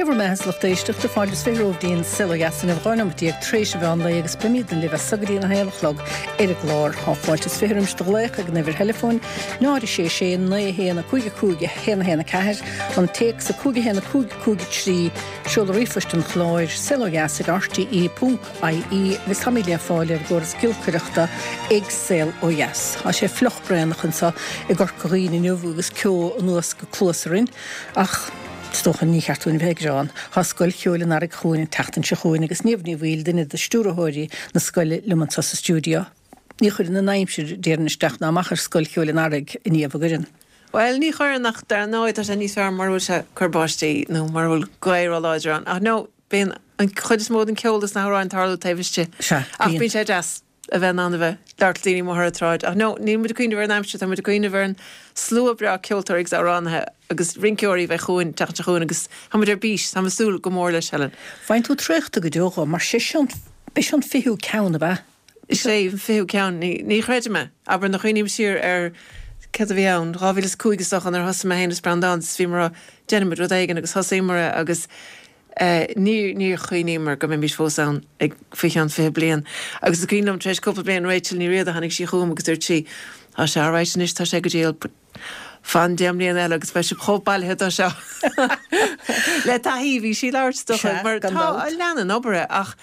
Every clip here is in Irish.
Sé bhur mbeatha a lucht éisteachta, fáilte is 20 romhaibh dtí'n Saol Ó Dheas inniu, 12 nóimeat tar éis an mheán lae agus beimidne libh as so go dtí an 1 a chlog ar an gclár. Tá fáilte is 20 roimis do ghlaoch ag an uimhir theileafóin, 0 6 6 9 1 5 5 1 1 4, an téacs 5 1 5 5 3, seoladh ríomhphoist an chláir, saolodheas ag rte ponc ie, agus táimid le fáil ar an gcóras giolcaireachta ag Saol Ó Dheas. Tá sé fliuch braonach anseo i gCorca Dhuibhne inniu agus ceo anuas go cluasa orainn. Ach is dócha ní cheart dúinn a bheith ag gearán. Tá Scoil Cheoil an Earraigh chugainn an tseachtain seo chugainn agus Niamh Ní Bhaoill, duine de stiúrthóirí na scoile, liom anseo sa stiúideo. Ní chuireann an aimsir, déarfainn, isteach ná amach ar Scoil Cheoil an Earraigh, a Niamh, an gcuireann? Bhuel, ní chuireann ach dar ndóigh tá sé níos fearr mura bhfuil sé ag cur báistí nó mura bhfuil gaoth róláidir ann. Ach no, bíonn an chuid is mó den ceol is na hamhráin ag tarlú taobh istigh. Sea, Ach bíonn sé deas. a bheith in ann a bheith ag labhairt le daoine amuigh ar an tsráid. Ach no, níl muid ag cuimhneamh ar an aimsir, tá muid ag cuimhneamh ar an slua breá ceoltóirí agus amhránaithe agus rinceoirí a bheidh chugainn, an tseachtain seo chugainn agus tá muid ar bís, táim ag súil go mór leis, Helen. Faigheann tú traochta go deo dhó, mar sé seo an, b'é seo an fichiú ceann, ab ea? Is é an fichiú ceann, ní, ní chreidim é. Abair, nuair a chuimhním siar ar céard a bhí ann, 2005 is dócha, nuair a thosaigh mé féin is Breandán, is bhíomar á rá, déanfaimid rud éigin agus thosaíomar é agus, Níor chuimhníomar go mbeimis fós ann ag faoi cheann 20 bliain. Agus is cuimhin liom, tar éis cúpla bliain, Rachel Ní Riada, tháinig sí chugam agus dúirt sí, Tá sé alright anois, tá sé go diail, but fan 10 mbliana eile agus beidh sibh chomh bailithe dó seo. Le taithí, bhí sí ag labhairt is dócha, mar tá, leanann obair é ach,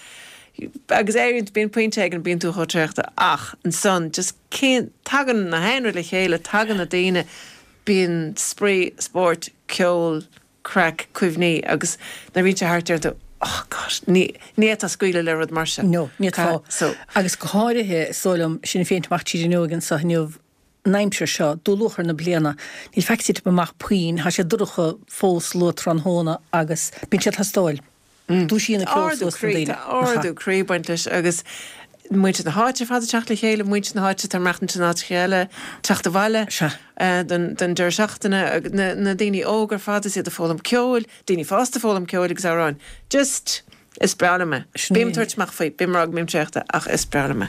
agus éiríonn, bíonn pointe éigin, bíonn tú chomh traochta ach ansan just cén, tagann na haon rud le chéile, tagann na daoine, bíonn spraoi, spórt, ceol, craic, cuimhní agus nuair a bhíonn sé thart deir tú oh God, ní ní fhéadfá scaoileadh le rud mar sin. No, ní fhéadfá. So. Agus go háirithe, is dóigh liom, sinn féin ag teacht amach tríd an fhuinneoig anseo inniu, an aimsir seo, dúluachair na bliana, níl faic ag titim amach puinn, tá sé dorcha fós luath tráthnóna agus bíonn sé ag teastáil. Dúisíonn an ceol suas na daoine. Tá ardú croí ag baint leis agus muintir na háite ar fad ag teacht le chéile, muintir na háite atá ag maireachtaint in áiteacha eile, teacht abhaile don deireadh seachtaine, na daoine óga ar fad is iad ag foghlaim ceoil, daoine fásta ag foghlaim ceoil agus amhráin. Just, is breá liom é. Bím ag tabhairt amach faoi, bím ag rá go mbím traochta ach is breá liom é.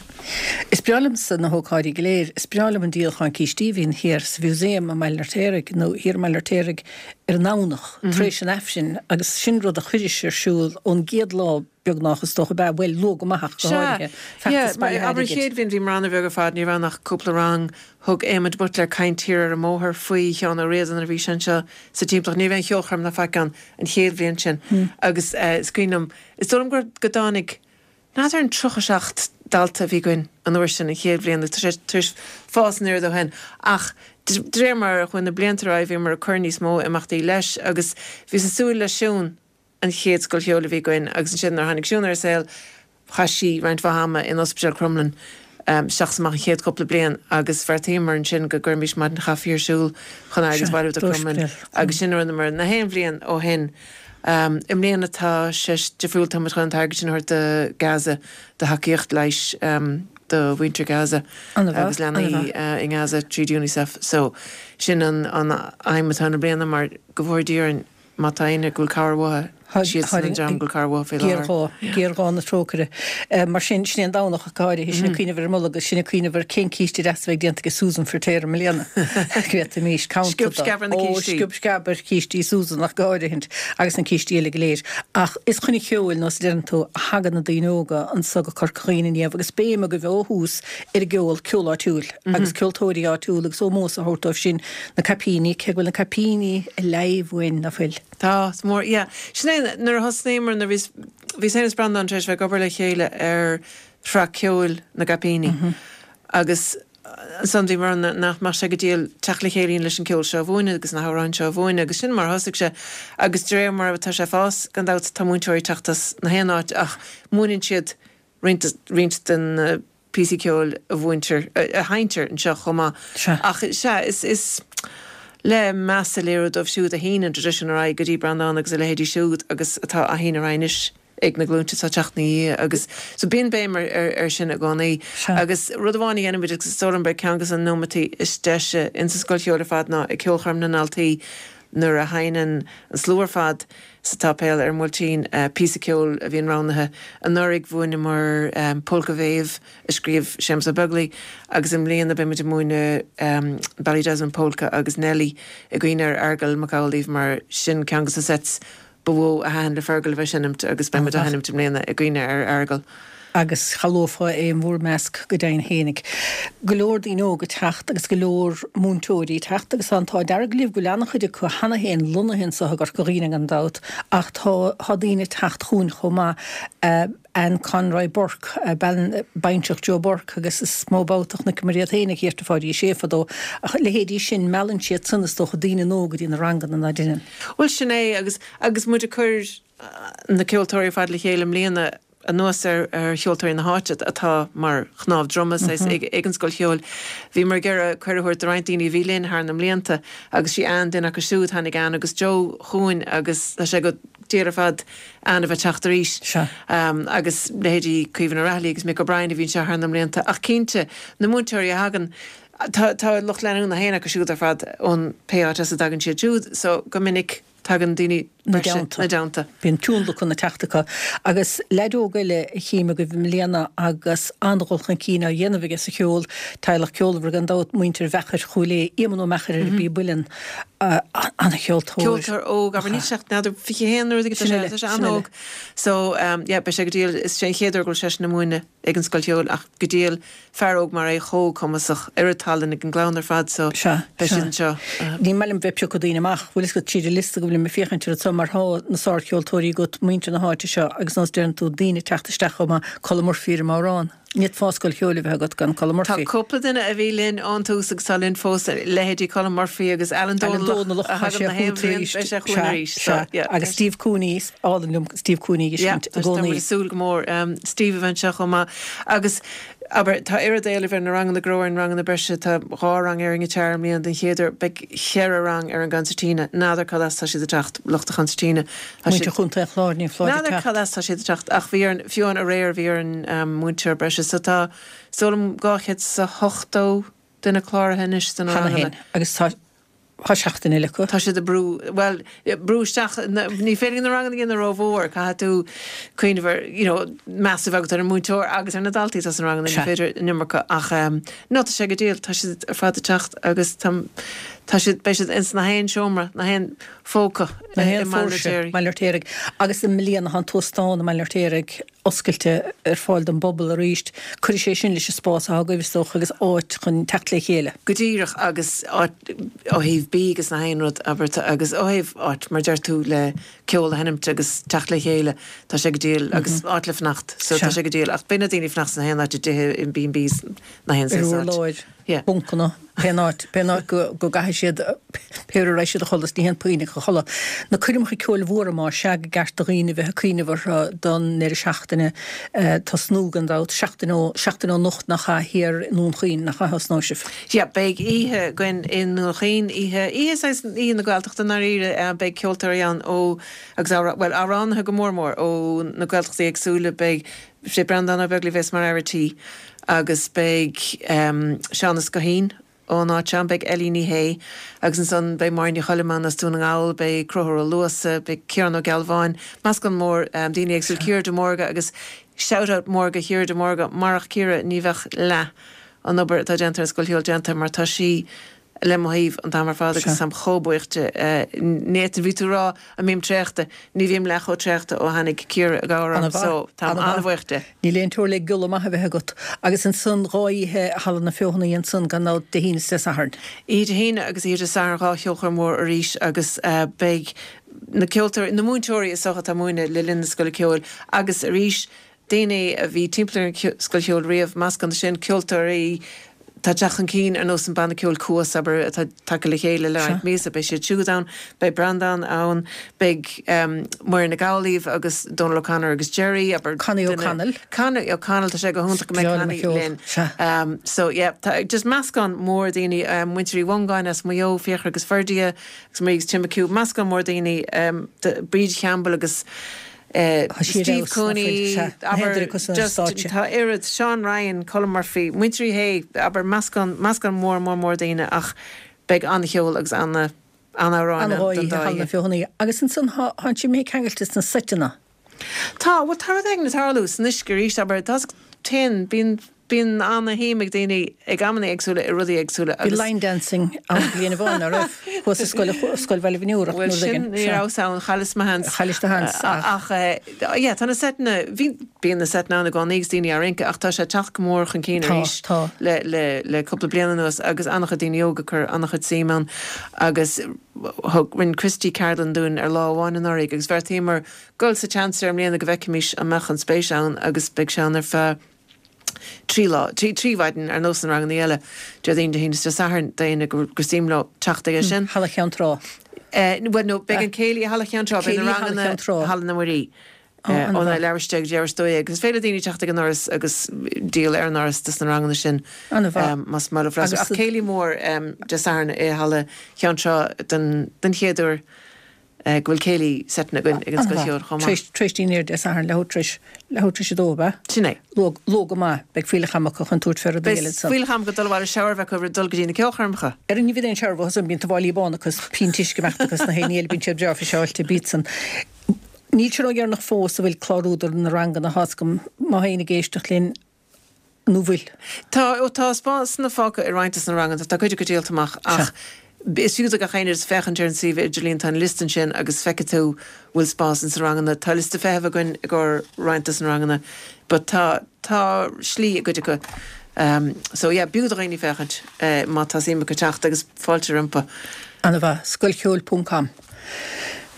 Is breá liomsa na hócáidí go léir. Is breá liom an díolachán cístí a bhíonn thiar sa Mhúsaem i mBaile an Fheirtéaraigh nó thiar i mBaile an Fheirtéaraigh ar an nDomhnach tar éis an Aifrinn agus sin rud a chuiris ar siúl ón gcéad lá beagnach is dócha ab ea, bhuel luath go maith ach go Sea, háirithe, yeah, feachtas mar bailithe abair an airgid. chéad bhliain bhíomar an-bheag ar fad, ní raibh ann ach cúpla rang, thug Éamon de Buitléar caint thiar ar an mbóthar faoi Sheán Ó Riada nuair a bhí sé anseo sa timpeallacht, ní raibh aon cheolchoirm ná faic ann an chéad bhliain sin agus eh is cuimhin liom, is dóigh liom gur, go dtáinig, N'fheadar an 37 dalta a bhí againn an uair sin, an chéad bhliain, agus tá sé tar éis fás an oiread ó shin. Ach de réir mar a chuaigh na blianta ar aghaidh bhíomar ag cur níos mó imeachtaí leis agus bhíos ag súil le Siún, an chéad scoil cheoil a bhí againn agus ansin nuair a tháinig Siún ar an saol chaith sí roinnt mhaith ama in Ospidéal Crumlin isteach is amach an chéad chúpla bliain agus bheartaíomar ansin go gcuirfimis maidin chaife ar siúl chun airgead a bhailiú do Crumlin agus sin a rinneamar na haon bhliain ó shin. I mbliana tá sé difriúil, tá muid chun an t-airgead sin a thabhairt do Gaza, do thacaíocht leighis do mhuintir Gaza agus leanaí i nGaza tríd Unicef. So sin an aidhm atá ann i mbliana mar go bhfóire Dia orainn má tá éinne go bhfuil cabhair uathu, siadsan an dream go bhfuil cabhair uathu faoi láthair. Géarghá, géarghá na trócaire. Mar sin, sin é an Domhnach ach go háirithe, sinn ag cuimhneamh ar an Nollag agus sinn ag cuimhneamh ar cén císte deas a bheidh déanta ag Susan Firtéar i mbliana. Go bhféadfaimis caint Sciob sceab ar na cístí. Ó, sciob sceab ar chístí Susan ach go háirithint agus na cístí eile go léir. Ach is chun an cheoil, nós a deireann tú, a thagann na daoine óga anso go Corca Dhuibhne inniu agus béim agaibh ó thús ar an gceol, ceol áitiúil agus ceoltóirí áitiúla agus ómós a thabhairt dóibh sin, na caipíní, cé go bhfuil na caipíní ag leimh uainn, ná fuil? Tá, is mór, yeah. Sin é, nuair a thosnaíomar, nuair a bhíos, bhíos féin is Breandán tar éis bheith ag obair le chéile ar shraith ceoil na gCaipíní agus ansan bhíomar ann nach mbeadh sé go diail teacht le chéile leis an ceol seo a mhúineadh agus na hamhráin seo a mhúineadh agus sin mar a thosaigh sé agus de réir mar atá sé ag fás, gan dabht tá múinteoirí ag teacht as na haon áit ach múineann siad roinnt, roinnt den na píosaí ceoil a mhúintear, a sheinntear anseo chomh maith. Sea. Ach sea, is, is le meas a léiriú dóibh siúd a shín an traidisiún ar aghaidh go dtí Breandán agus a leithéidí siúd agus atá á shíneadh ar aghaidh anois ag na glúinte atá ag teacht ina dhiaidh agus so bíonn béim ar, ar, ar sin i gcónaí. Sea. Agus rud amháin a dhéanaimid agus is dóigh liom gurb é ceann de na nóimeataí is deise insa scoil cheoil ar fad ná ag ceolchoirm na ndaltaí nuair a sheinneann an slua ar fad sa tsáipéal ar an mBuailtín, píosa ceoil a bhíonn roghnaithe. Anuraidh mhúineamar Polca Mhéabh a scríobh Séamus Ó Beaglaoi agus i mbliana beidh muid ag múineadh Ballydesmond Polka agus Nellie i gcuimhne ar Fheargal Mac Amhlaoibh mar sin ceann de na sets. ba mhó a thaitin le Fergal a bheith ag seinmt agus beidh muid á sheinmt i mbliana i gcuimhne ar Fheargal. Agus shamhlófá é in bhur measc go deimhin fhéinig. Go leor daoine óga ag teacht agus go leor múinteoirí ag teacht agus tá an t-ádh dearg libh go bhfuil an-chuid acu cheana féin lonnaithe anseo i gCorca Dhuibhne gan dabht ach tá tá daoine ag teacht chugainn chomh maith. Anne Conroy Burke, bean baintreach Joe Burke agus is mó babhta a chonaiceamar iad féin ag Thiar to Pháidí Sé fadó. Ach leithéidí sin, meallann siad san is dócha daoine nua go dtí na ranganna ná deineann. Bhuel sin é agus agus muid ag cur na ceoltóirí ar fad le chéile i mbliana anuas ar ar cheoltóirí na háite atá mar chnámh droma saghas ag ag an Scoil Cheoil. Bhíomar ag iarraidh cuireadh a thabhairt do roinnt daoine a bhí linn thar na mblianta agus sí Anne duine acu siúd. Tháinig Anne agus Joe chugainn agus tá sé go diail ar fad Anne a bheith teacht arís. Sea. Agus leithéidí Caoimhín Ó Raghallaigh agus Mick O'Brien a bhí anseo thar na mblianta. Ach cinnte, na múinteoirí a thagann, tá tá lucht leanúna féin acu siúd ar fad ón pé áit as a dtagann siad siúd, so go minic tagann daoine 'Na dteannta. 'Na dteannta. Bíonn tionlacan ag teacht acu. Agus leaid óg eile a chím agaibh i mbliana agus an-dhul chun cinn á dhéanamh aige sa cheol, teaghlach ceolmhar gan dabht, muintir Mheachair Chúil Aodha, Éamonn Ó Meachair ar an bpíob uilleann. An-cheoltóir. Ceoltóir óg, abair, níl sé ach n'fheadar 21 nó rud éigin, tá sé, tá sé an-óg. So, yeah, beidh sé go diail, is é an chéad uair go bhfuil seisean ag múineadh ag an Scoil Cheoil ach go diail, fear óg mar é, chomh cumasach, oiread tallann ag an gclann ar fad so beidh siad anseo. Ní maith liom bheith ag piocadh daoine amach, bhfuil fhios agat, tríd an liosta go bhfuilim ag féachaint air anseo mar thá na sárcheoltóirí agat, muintir na háite seo agus nós deireann tú, daoine ag teacht isteach chomh maith, Colm Murphy ar an mbodhrán. Ní fhéadfá scoil cheoil a bheith agat gan Colm Murphy. Tá cúpla duine a bhí linn ón tús agus tá linn fós, leithéidí Colm Murphy agus Alan Dónallach a thagann na haon bhliain, beidh sé chugainn arís. Sea, sea. Agus Steve Cooney, is álainn liom Steve Cooney a fheiscint i gcónaí. Tá muid ag súil go mór Steve a bheith anseo chomh maith. Agus, abair, tá oiread éilimh ar na ranganna go raibh ar na ranganna breise, tá dhá rang ar an ngiotár i mbliana den chéad uair, beidh cheithre rang ar an gconsairtíne, n'fheadar cad as tá siad ag teacht, lucht an chonsairtíne. Tá siad. Muintir Chontae an Chláir, ní foláir N'fheadar cad as tá siad ag teacht ach bhí orainn, fiú amháin aréir bhí orainn múinteoir breise so tá, is dóigh liom 270 duine cláraithe anois sna Cheana ranganna. féin agus tá, tá seachtain eile acu. Tá siad ag brú, bhuel, brú isteach, ní féidir na ranganna a dhéanamh rómhór, caithfidh tú cuimhneamh ar, you know, meas a bheith agat ar an múinteoir agus ar na daltaí atá sna ranganna, ní féidir an iomarca ach no tá sé go diail, tá siad ar fad ag teacht agus tá, tá siad, beidh siad ins na haon seomra, na haon phóca i mBaile an Fheirtéaraigh. Baile an Fheirtéaraigh. Agus i mbliana tá an t-óstán i mBaile an Fheirtéaraigh oscailte ar fáil don bpobal arís. Cuirfidh sé sin leis an spás atá agaibh, is dócha, agus áit chun teacht le chéile. Go díreach, agus áit ó thaobh bídh agus na haon rud, abair, agus ó thaobh áit, mar deir tú, le ceol a sheinmt agus teacht le chéile, tá sé go diail, agus áit le fanacht, so tá sé go diail. Ach beidh na daoine ag fanacht sna haon áit, i dtithe, in B&Bs, na haon saghas áit. Ar urláir. Yeah. Buncanna, pén áit, pén áit go, go gcaithfidh siad, pé uair a raghaidh siad a chodladh, is ní haon puinn a chodladh. Na coirmeacha ceoil mhóra más ea go gceart do dhaoine bheith ag cuimhneamh orthu don ndeireadh seachtaine tosnú gan dabht, seachtain ó, seachtain ó anocht nach ea, thiar i nDún Chaoin, nach ea a thosnóidh sibh? Yeah, beidh oíche againn i nDún Chaoin, oíche, oíche saghas, oíche na Gaeltachta i ndáiríre, beidh ceoltóirí ann ó, agus amhrá, bhuel, amhránaithe go mór mór ó na Gaeltachtaí éagsúla, beidh, sé Breandán Ó Beaglaoich a bheas mar fhear a' tí agus beidh Seán Ó Scoithín ón áit seo ann, beidh Ellie Ní Shé agus ansan beidh Máire Ní Choilm ann as Dún na nGall, beidh Conchúr Ó Luasa, beidh Ciarán Ó Gealbháin, meascán mór daoine éagsúil, Ciara de Mórdha agus shout out mór go Chiara de Mórdha, marach Ciara ní bheadh leath an obair atá déanta ar an Scoil Cheoil déanta mar tá sí le mo thaobh an t-am ar fad agus táim chomh buíoch di. Ní fhéadfainn, bhí tú ag rá an mbím traochta, ní bhím leath chomh traochta ó tháinig Ciara i gcabhair orm so táim an-bhuíoch di. Níl aon teora le giolla maith a bheith agat. Agus ansan dhá oíche i Halla na Feothanaí ansan gan dabht, Dé hAoine is Dé Sathairn. Oíche Dé hAoine agus oíche Dé Sathairn dhá cheolchoirm mhór arís agus beidh na ceoltóirí, na múinteoirí is dócha atá ag múineadh le linn na Scoile Ceoil agus arís Daoine a bhí timpeall ar an Scoil Cheoil riamh, meascán de sin, ceoltóirí atá ag teacht chun cinn ar nós an banna ceoil Cuas, abair, atá tagtha le chéile le roinnt míosa, beidh siad siúd ann, beidh Breandán ann, beidh Muireann Nic Amhlaoibh agus Dónal O'Connor agus Gerry, abair, Connie O'Connell. Connie O'Connell, tá sé go hiontach go mbeidh Connie linn. So yeah, tá just meascán mór daoine, muintir Uí Mhongáin as Maigh Eo, Fiachra agus Ferdia agus Marie agus Tim McHugh, meascán mór daoine, Bríd Champbell agus Steve Cooney, abair, just, tá oiread, Seán Ryan, Colm Murphy, muintir Uí Shé, abair, meascán, meascán mór, mór, mór daoine ach beidh an-cheol agus ana, an-amhráin ann don dá oíche. Feothanaí. Agus ansan tá, tá sibh imithe ceangailte sna seiteanna. Tá, bhuel tá rud éigin ag tarlú san uisce arís, abair, tá, téann, bíonn. Bíonn ana-shuim ag daoine ag amanna éagsúla i rudaí éagsúla agus. Bhí line dancing ann bliain amháin, ná raibh? Thuas i scoil, Scoil Bhaile Bhun Iúrach nó rud éigin. Bhuel sin, ní rabhas ann, chailleas mo sheans. Chaillis do sheans, ach. Ach yeah, tá na seiteanna, bhí, bíonn na seiteanna ann i gcónaí agus daoine á rince ach tá sé ag teacht go mór chun cinn arís Tá, tá. le, le, le cúpla bliain anuas agus an-chuid daoine óga ag cur an-chuid suim ann agus thug, rinne Christy ceardlann dúinn ar lá amháin anuraidh agus bheartaíomar dul sa tseans air i mbliana go bhfeicfimis an mbeadh an spéis ann agus beidh sé ann ar feadh 3 lá, 3 mhaidin ar nós na ranganna eile, Déardaoin, Dé hAoine is Dé Sathairn, d'éinne gur suim leo teacht aige sin. Halla Cheann Trá. Bhuel no, beidh an céilí i Halla Cheann Trá, beidh na ranganna i Halla na Muirí. Óna leathuair tar éis 10 go dtí leathuair tar éis 12 agus is féidir le daoine teacht ag an ndoras agus díol ar an ndoras dos na ranganna sin más maith leo freastal. Ach céilí mór Dé Sathairn i Halla Cheann Trá den chéad uair. go bhfuil céilí seiteanna againn ag an Scoil Cheoil chomh maith. Tar éis dinnéir Dé Sathairn, leathuair tar éis, leathuair tar éis a dó, ab ea? Sin é. Luath, luath go maith. Beidh fuílleach ama acu chun tabhairt fé rudaí eile ansan. Beidh fuílleach ama acu dul abhaile shower a bheith acu roimh dul go dtí na ceolchoirmeacha. Ar ní bhíonn aon shower uathu san, bíonn tuáillí bána acu is pionta uisce ag imeacht acu is na haon ní eile, bíonn siad breá friseáilte, bíodsan. Níl sé ródheireanach fós a bhfuil clárú do na ranganna, tá's agam, má tá éinne ag éisteacht linn, nó bhfuil? Tá, ó tá spásanna fágtha i roinnt des na ranganna, tá cuid acu díolta amach ach is fiú do gach éinne just féachaint ar an suíomh idirlíon, tá an liosta ansin agus feicfidh tú bhfuil spás ins na ranganna. Tá liosta feithimh againn i gcomhair roinnt des na ranganna but tá, tá slí i gcuid acu. So yeah, b'fhiú do dhaoine féachaint má tá suim acu teacht agus fáilte rompu. Ana-mhaith. Scoilcheoil ponc com.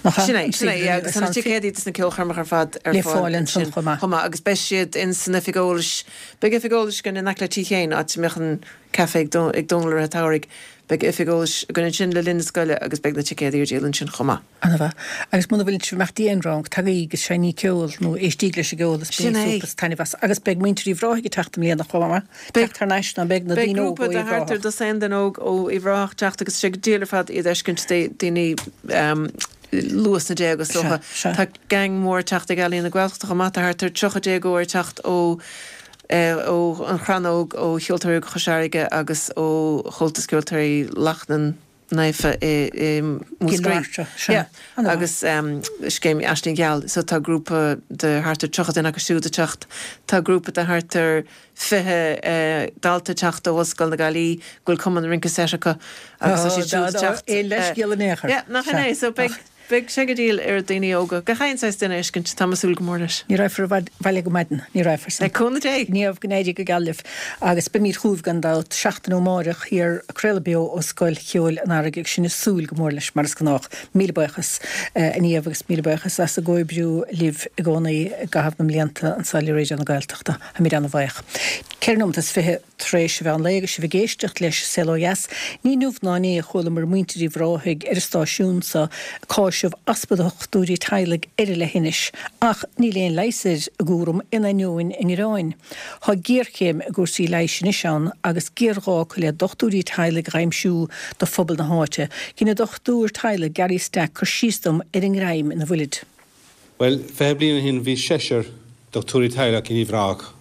Nach ea? Sin é, sin é, yeah, agus tá na ticéadaí dos na ceolchoirmeacha ar fad ar Le fáil ansin chomh maith. Chomh maith, agus beidh siad in san oifig eolais, beidh oifig eolais againn in aice le Tigh Sheáin, áit a mbeadh an caife ag ag Dónal i rith an tsamhraidh, beidh oifig eolais againn ansin le linn na scoile agus beidh na ticéadaí ar díol ansin chomh maith. Ana-mhaith. Agus muna bhfuil sibh ag imeacht go dtí aon rang, tagaigí agus seinnígí ceol nó éistíg leis an gceol is Sin bainigí é. súp is taitneamh as. Agus beidh muintir Uíbh Ráthaigh ag teacht i mbliana chomh maith. Teacht thar n-ais ná beidh na Beidh daoine óga grúpa ó de Uíbh thart ar Ráthach. dosaen duine óg ó Uíbh Ráthach ag teacht agus tá sé go diail ar fad iad a fheiscint, daoine luath sna déaga is dócha. Sea, sea. Tá gang mór ag teacht ag Ealaín na Gaeltachta chomh maith, tá thart ar 30 déagóir ag teacht ó ó An Chrannóg, ó Cheoltóirí Óga Chois Fharraige agus ó Chomhaltas Ceoltóirí Lachnainn. Naofa i Múscraí. Sea. Agus scéim Aisling Gheal. So tá grúpa de thart ar 30 duine acu siúd ag teacht. Tá grúpa de thart ar 20 dalta ag teacht ó Ollscoil na Gaillimhe go bhfuil cumann rince seit acu agus tá siad siúd ag teacht. Aon leithscéal in aon chor. Yeah, nach in é. So beidh Beidh sé go diail ar daoine óga, gach aon saghas duine a fheiscint, tá mé ag súil go mór leis. Ní raghfar abhaile go maidin, ní raghfar san. Le cúnamh Dé! Niamh, go n-éirí go geal libh agus beimid chugaibh gan dabht seachtain ó amáireach thiar ag craoladh beo ó Scoil Cheoil an Earraigh agus sinn ag súil go mór leis mar is gnách. Míle buíochas a Niamh agus míle buíochas as an gcomhoibriú libh i gcónaí i gcaitheamh na mblianta anseo le Raidió na Gaeltachta. Táimid ana-bhuíoch. 4 nóimeat is 20. Tar éis an mheán lae agus sibh ag éisteacht leis Saol Ó Dheas, ní inniu ná inné a chualamar muintir Uíbh Ráthaigh ar an stáisiún seo ag cáiseamh easpa dochtúirí teaghlaigh ar an leithinis, ach níl aon leigheas ar a gcúram in ainneoin a ngearáin. Tá géarchéim i gcúrsaí leighis anois ann agus géarghá acu le dochtúirí teaghlaigh a aimsiú do phobal na háite. Dhein an dochtúir teaghlaigh Gary Stack cur síos dom ar an ngreim ina bhfuilid. Bhuel, 20 bliain ó shin bhí seisear dochtúirí teaghlach in Uíbh Ráthach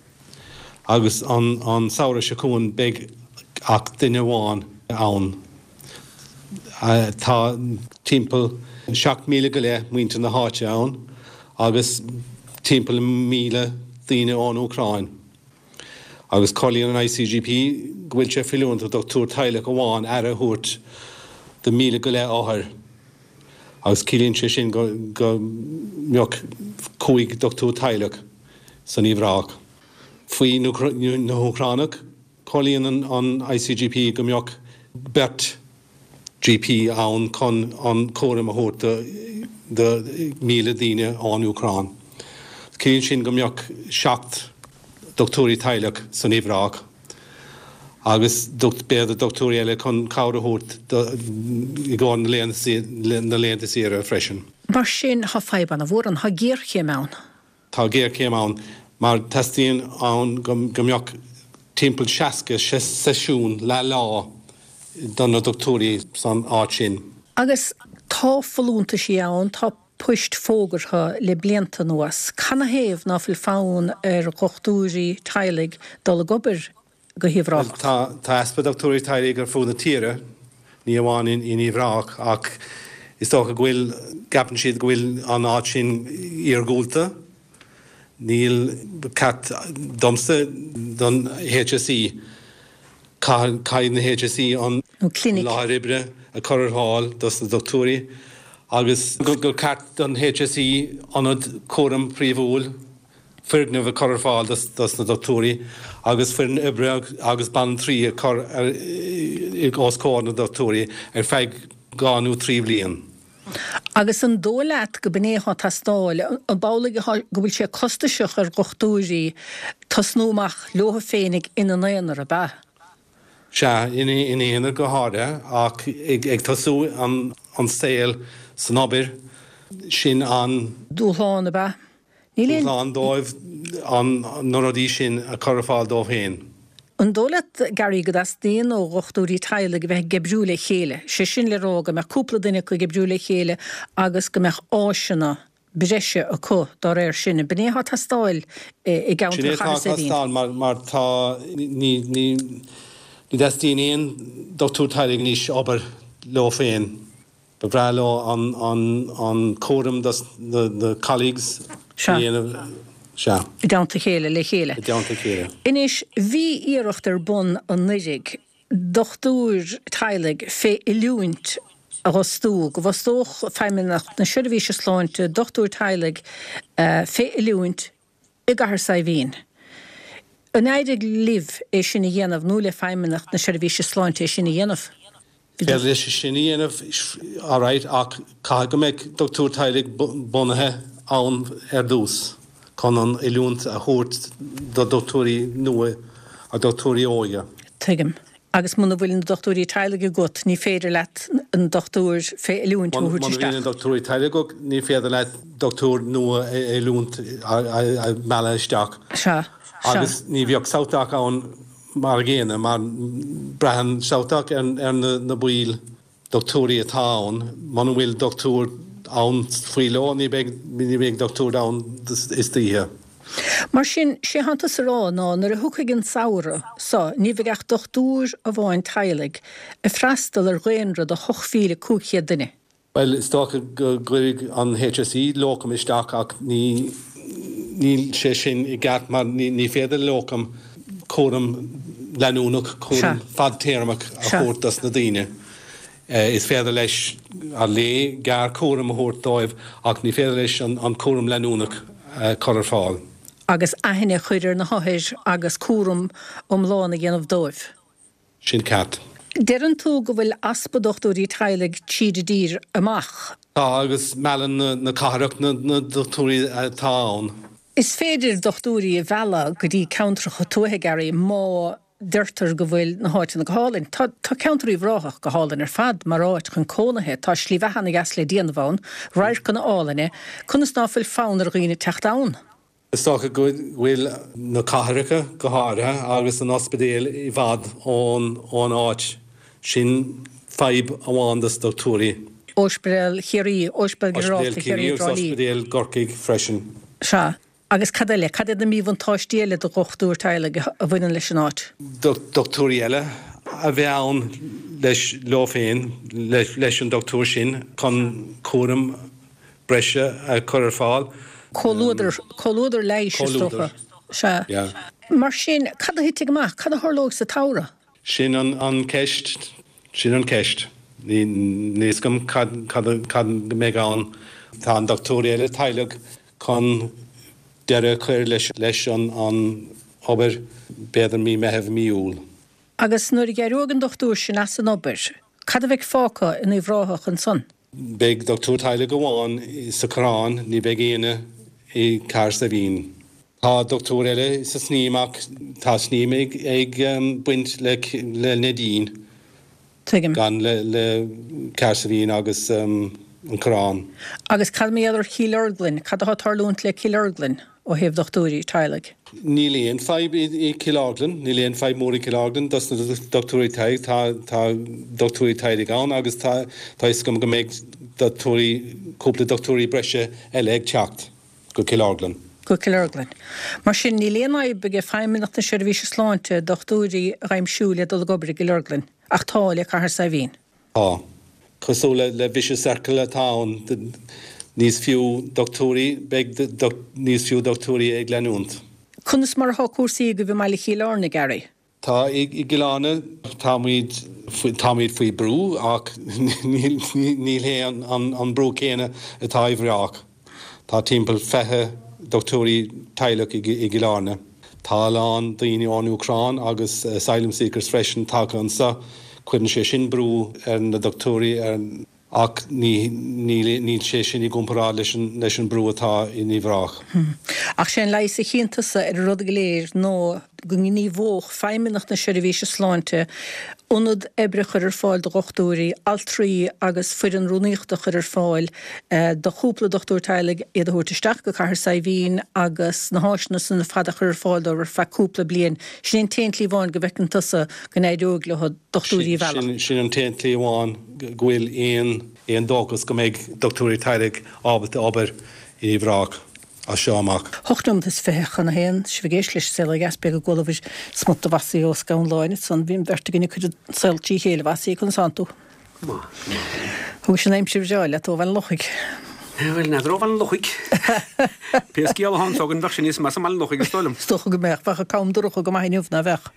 agus an samhradh seo chugainn beidh ach duine amháin ann. Tá timpeall 7,000 go leith muintir na háite ann agus timpeall 1,000 daoine ón Úcráin. Agus comhairlíonn an ICGP go bhfuil sé feiliúnach do dhochtúir teaghlach amháin aire a thabhairt do 1,000 go leith othar agus ciallaíonn sé sin go mbeadh 5 dochtúir teaghlach san Uíbh Ráthach. Faoi na hÚcránaigh, comhairlíonn an ICGP go mbeadh beirt GP ann chun an cúram a thabhairt do 1,000 daoine ón Úcráin. Ciallaíonn sin go mbeadh 7 dochtúirí teaghlach san Uíbh Ráthach agus b'fhéidir dochtúirí eile chun cabhair a thabhairt i gcomhair na laethanta saoire freisin. Mar sin, tá fadhb ana-mhór ann, tá géarchéim ann. Tá géarchéim ann mar teastaíonn ann go mbeadh timpeall 60 seisiún leath lá do na dochtúirí san áit sin. Agus tá folúntaisí ann, tá poist fógartha le blianta anuas. Canathaobh ná fuil fonn ar dhochtúirí teaghlaigh dul ag obair go hUíbh Bhuel, Ráthach? tá tá easpa dochtúirí teaghlaigh ar fud na tíre, ní amháin in in Uíbh Ráthach, ach is dócha go bhfuil, gceapann siad go bhfuil an áit sin iargúlta. Níl, ceart domsa don HSE, caithfidh na HSE an láthair oibre a chur ar fáil dos na dochtúirí agus gur ceart don HSE ionad cúraim príomhúil, foirgneamh a chur ar fáil dos na dochtúirí agus foireann oibre agus banaltraí a chur os comhair na dochtúirí ar feadh 2 nó 3 bhliain. Agus an dóigh leat go b'in é atá ag teastáil? An amhlaidh atá go bhfuil sé costasach ar dhochtúirí tosnú amach leo féinig ina n-aonar, ab ea? Sea, ina n-aonar go háirithe, ach ag tosú an saol san obair, sin an. Dúshlán, ab ea? Níl aon. Dúshlán dóibh na rudaí sin a chur ar fáil dóibh féin. An dóigh leat, Gary, go dteastaíonn ó dhochtúirí teaghlaigh a bheith ag oibriú le chéile, sé sin le rá go mbeadh cúpla duine acu ag oibriú le chéile agus go mbeadh áiseanna breise acu dá réir sin. An b'in é atá ag teastáil i gceantar Sin é atá Chathair ag Saidhbhín? teastáil mar mar tá ní ní ní dteastaíonn aon dochtúir teaghlaigh anois obair leo féin. Ba bhreá leo an cúram dos na colleagues a dhéanamh. Sea. I dteannta a chéile, le chéile. I dteannta a chéile. Anois, bhí iarracht ar bun anuiridh dochtúir teaghlaigh fé oiliúint a dh'fhostú, go bhfostódh Feidhmeannacht na Seirbhíse Sláinte dochtúir teaghlaigh fé oiliúint i gCathair Saidhbhín. An éirigh libh é sin a dhéanamh nó le Feidhmeannacht na Seirbhíse Sláinte é sin a dhéanamh? Bhí Féidir leis sin a dhéanamh alright ach caithfidh go mbeidh dochtúir teaghlaigh bunaithe ann ar dtús chun an oiliúint a thabhairt do dochtúirí nua a dochtúirí óige. Tuigim. Agus muna bhfuil na dochtúirí teaghlaigh agat, ní féidir leat an dochtúir fé oiliúint a thabhairt Muna bhíonn na isteach. dochtúirí teaghlaigh agat, ní féidir leat dochtúir nua a oiliúint a mhealladh isteach. Sea. Sea. Agus ní bheadh SouthDoc ann mar a gcéanna, mar braitheann SouthDoc ar na baill. dochtúirí atá ann. Muna bhfuil dochtúir ann faoi ló, ní bheidh, ní bheidh dochtúir ann istoíche. Mar sin, sé thánn tusa a rá ná nuair a thiocfaidh an samhradh so, ní bheidh ach dochtúir amháin teaghlaigh ag freastal ar dhaonra de 8,500 duine. Bhuel, is dócha go gcuirfidh an HSE locum isteach ach ní, níl sé sin i gceart mar ní féidir le locum cúram leanúnach, cúram fadtéarmach a thabhairt dos na daoine. Is féidir leis ar léi gearrchúram a thabhairt dóibh ach ní féidir leis an cúram leanúnach a chur ar fáil. Agus aithne a chur ar na hothair agus cúram iomlán a dhéanamh dóibh. Sin ceart. Deireann tú go bhfuil easpa dochtúirí teaghlaigh tríd an dtír amach. Tá, agus meallann na cathrach na dochtúirí atá ann. Is féidir dochtúirí a mhealladh go dtí ceantracha tuaithe, Gary, má deirtear go bhfuil na háiteanna go hálainn. Tá tá ceantar Uíbh Ráthach go hálainn ar fad mar áit chun cónaithe. Tá slí bheatha ana dheas le déanamh ann, radharcanna álainne. Conas ná fuil fonn ar dhaoine teacht ann? Is dócha go bhfuil na cathracha, go háirithe, agus an ospidéal i bhfad ón áit. Sin fadhb amháin dos dochtúirí. Ospidéal Chiarraí, Ospidéal Ginearálta Ospidéal Chiarraí Chiarraí i agus dTrá Lí. Ospidéal gCorcaigh freisin. Sea. Agus cad eile? Cad iad na míbhuntáistí eile do dhochtúir teaghlaigh a bhaineann leis an áit? Dochtúirí eile a bheith ann leis, leo féin, leis an dochtúir sin chun cúram breise a chur ar fáil. Comhluadar, comhluadar leighis is dócha. Comhluadar, Sea. yeah. Mar sin, cad a thitfidh amach? Cad a tharlóidh sa tsamhradh? Sin an ceist, sin an ceist. Níl a fhios agam cad, cad, cad a mbeidh ann. Tá an dochtúir eile teaghlaigh chun deireadh a chur leis, leis an obair, b'fhéidir mí Meitheamh, mí Iúil. Agus nuair a d'éireoidh an dochtúir sin as an obair, cad a bheidh fágtha in Uíbh Ráthach ansan? Beidh dochtúir teaghlaigh amháin sa Choireán, ní bheidh éinne i gCathair Saidhbhín. Tá dochtúir eile sa Sneem ach tá Sneem ag baint le Neidín, Tuigim. gan le Cathair Saidhbhín agus an Coireán. Agus cad mar gheall ar Chill Orglan? Cad atá ag tarlúint le Cill Orglan ó thaobh dochtúirí teaghlaigh? Níl aon fadhb i Cill Orglan, níl aon fadhb mór i Cill Orglan dos na dochtúirí teaghlaigh, tá tá dochtúirí teaghlaigh ann agus tá tá fhios agam go mbeidh dochtúirí, cúpla dochtúirí breise eile ag teacht go Cill Orglan. Go Cill Orglan. Mar sin, níl aon fhadhb ag Feidhmeannacht na Seirbhíse Sláinte dochtúirí a aimsiú le dul ag obair i gCill Orglan, ach tá le Cathair Saidhbhín. Tá. Cosúil le vicious circle atá ann. Níos fiú dochtúirí, beidh níos fiú dochtúirí ag leanúint. Conas mar atá cúrsaí agaibh i mbaile Chill Airne, Gary? Tá i gCill Airne, táimid, táimid faoi brú ach níl, níl hé an brú céanna atá i bhReác. Tá timpeall 20 dochtúirí teaghlach i gCill Airne. Tá a lán daoine ón Úcráin agus asylum seekers freisin tagtha anseo. Cuireann sé sin brú ar na dochtúirí, ar. Ach ní, níl sé sin i gcomparáid leis an, leis an brú atá in Uíbh Ráthach. Ach sé an leigheas a chíonn tusa ar an rud go léir ná go ngníomhódh Feidhmeannacht na Seirbhíse Sláinte ionad oibre a chur ar fáil do dhochtúirí, altraí agus foireann rúnaíochta a chur ar fáil do chúpla dochtúir teaghlaigh, iad a thabhairt isteach go Cathair Saidhbhín agus na háiseanna san ar fad a chur ar fáil dóibh ar feadh cúpla bliain. Sin é an t-aon tslí amháin go bhfeiceann tusa go n-éireoidh leo dochtúirí a mhealladh. Sin an t-aon tslí amháin go bhfuil aon dóchas go mbeidh dochtúirí teaghlaigh ábalta obair in Uíbh Ráthach as seo amach. Hocht nóiméad is 20 chun a haon, sibh ag éisteacht leis an Saol Ó Dheas, beidh go gcualabhair smut de Mhossie Ó Scanláin ansan. Bhí an bheirt againn ag cur an saol trí chéile, a Mhossie, conas tánn tú? Go maith, go maith. Thugais an aimsir bhreá leat ó Bhaile an Lochaigh. Bhuel, n'fheadar ó Bhaile an Lochaigh. Pé scéal atá anso againn, bheadh sé níos measa i mBaile an Lochaigh, is dóigh liom. Is dócha go mbeadh. Bheadh an cam dorcha go maith inniu, ná bheadh?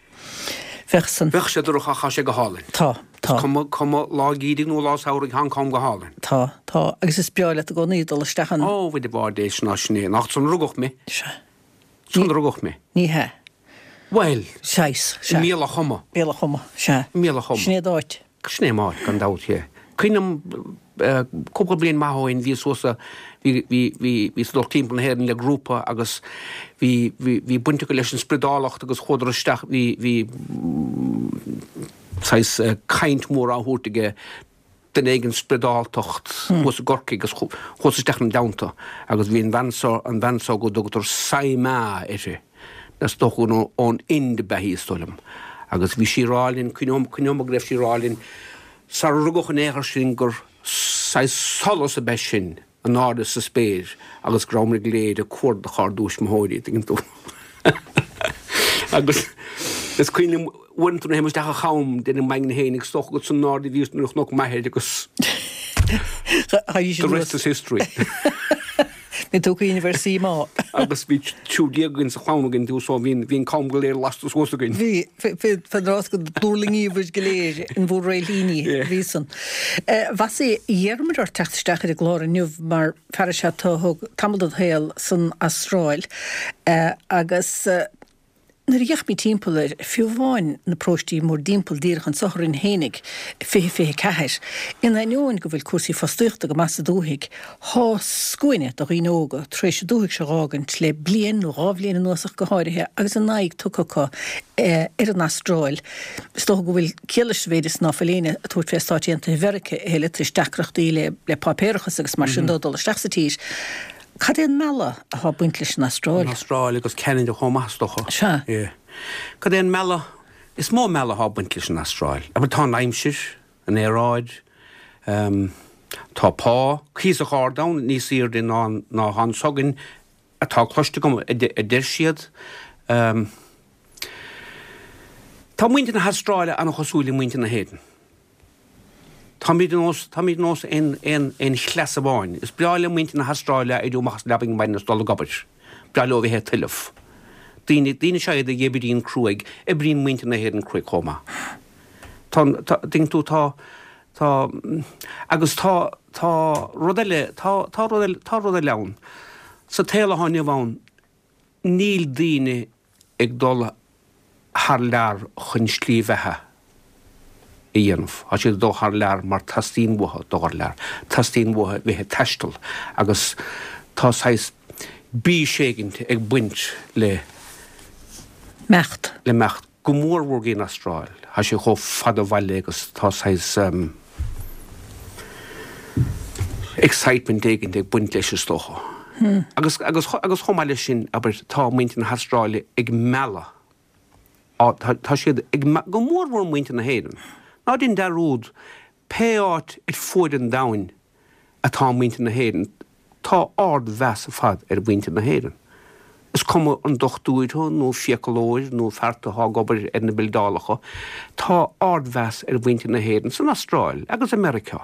Bheadh san. Bheadh sé dorcha ach tá sé go hálainn. Tá, tá. Is cuma, cuma lá geimhridh nó lá samhraidh, tá an cam go hálainn. Tá, tá. Agus is breá leat i gcónaí dul isteach ann. Ó, bhuel, de bharr Dé, sin ná sin é. Nach ansan a rugadh mé. Sea. Ansan a rugadh mé. Ní hea. Bhuel. Saghas, sea. I mBealach Choma. Bealach Choma, sea. I mBealach Choma. Sin é d'áit. Sin é m'áit, gan dabht, yeah. Cuimhním cúpla bliain maith ó shin, bhíos suas sa, bhí, bhí, bhí, bhíos ag dul timpeall na hÉireann le grúpa agus bhí, bhí, bhí baint acu leis an spriodálacht agus chuadar isteach, bhí, bhí saghas caint mhór á thabhairt aige duine éigin spriodáltacht thuas i gCorcaigh agus chuas isteach ina dteannta agus bhí an bhean seo, an bhean seo go dtugtar Sai Ma uirthi, is dócha gur ón Ind ab ea í is dóigh liom, agus bhí sí ag rá linn, cuimhneoidh, cuimhneoidh mé go raibh sí ag rá linn sarar rugadh in aon chor sinn gur saghas solas ab ea sinn in airde sa spéir agus go rabhamar go léir ag cuardach ár dtuismitheoirí, tuigeann tú. Agus is cuimhin liom uaireanta nuair a théim isteach an cham, deirim m'aigne féin, is dócha gur san airde a bhíos nuair a chonac m'athair agus the rest is history. Bhí tú ag cuimhneamh ar Sai Ma. Agus bhí 13 againn sa chlann againn tú so bhí an cam go léir lasta suas againn. Bhí, fén rás go dtuirlingíobhair go léir in bhur réilthíní a bhí san. Mhossie, d'iarramar ort teacht isteach ar an gclár inniu mar fear is ea tú a thug tamall de do shaol san Astráil agus Nuair a d'fhéachaimid timpeall ar, fiú amháin, na paróistí mórdtimpeall díreach anso orainn fhéinig, 20 24, in ainneoin go bhfuil cúrsaí fostaíochta go maith sa dúthaigh, thá scuaine de dhaoine óga tar éis an dúthaigh seo dh'fhágaint le bliain nó dhá bhliain anuas ach go háirithe agus a n-aghaidh tugtha acu ar an Astráil. Is dócha go bhfuil ciall leis sa mhéid is ná fuil éinne ag tabhairt fé Stáit Aontaithe Mheirice a thuilleadh tar éis deacrachtaí le páipéarachas agus mar sin dó dul isteach sa tír. Cad é an mealladh atá ag baint leis an Astráil? An Astráil agus Ceanada chomh maith, is dócha. Sea. Yeah. Cad é an mealladh? Is mó mealladh atá ag baint leis an Astráil. Abair, tá an aimsir, an aeráid, tá pá cuíosach ard ann, níos airde ná ná atá anso againn, atá cloiste agam, a deir siad. Tá muintir na hAstráile an-chosúil le muintir na hÉireann. Táimid ar nós, táimid ar nós aon, aon, aon chleas amháin. Is breá le muintir na hAstráile éirí amach as an leabaidh ar maidin is dul ag obair. Breá leo a bheith ag tuilleamh. Daoine, daoine is ea iad a oibríonn cruaidh. Oibríonn muintir na hÉireann cruaidh chomh maith. Tá, tá, tuigeann tú, tá, tá, agus tá, tá rud eile, tá, tá rud eile, tá rud eile ann. Sa tsaol atá inniu ann, níl daoine ag dul thar lear chun slí bheatha a dhéanamh. Tá siad ag dul thar lear mar teastaíonn uathu dul thar lear. Teastaíonn uathu bheith ag taisteal agus tá saghas bís éigint ag baint le. Imeacht. Le imeacht. Go mór mhór go dtí an Astráil. Tá sé chomh fada ó bhaile agus tá saghas excitement éigint ag baint leis is dócha. Agus, agus, agus chomh maith leis sin, abair, tá muintir na hAstráile ag mealladh, tá, tá siad ag, go mór mhór muintir na hÉireann. Ná déan dearúd, pé áit ar fuaid an domhain atá muintir na hÉireann, tá ard-mheas ar fad ar mhuintir na hÉireann. Is cuma an dochtúir thú nó fiacalóir nó fear atá ag obair ar na bildeálacha, tá ard-mheas ar mhuintir na hÉireann san Astráil agus i Meiriceá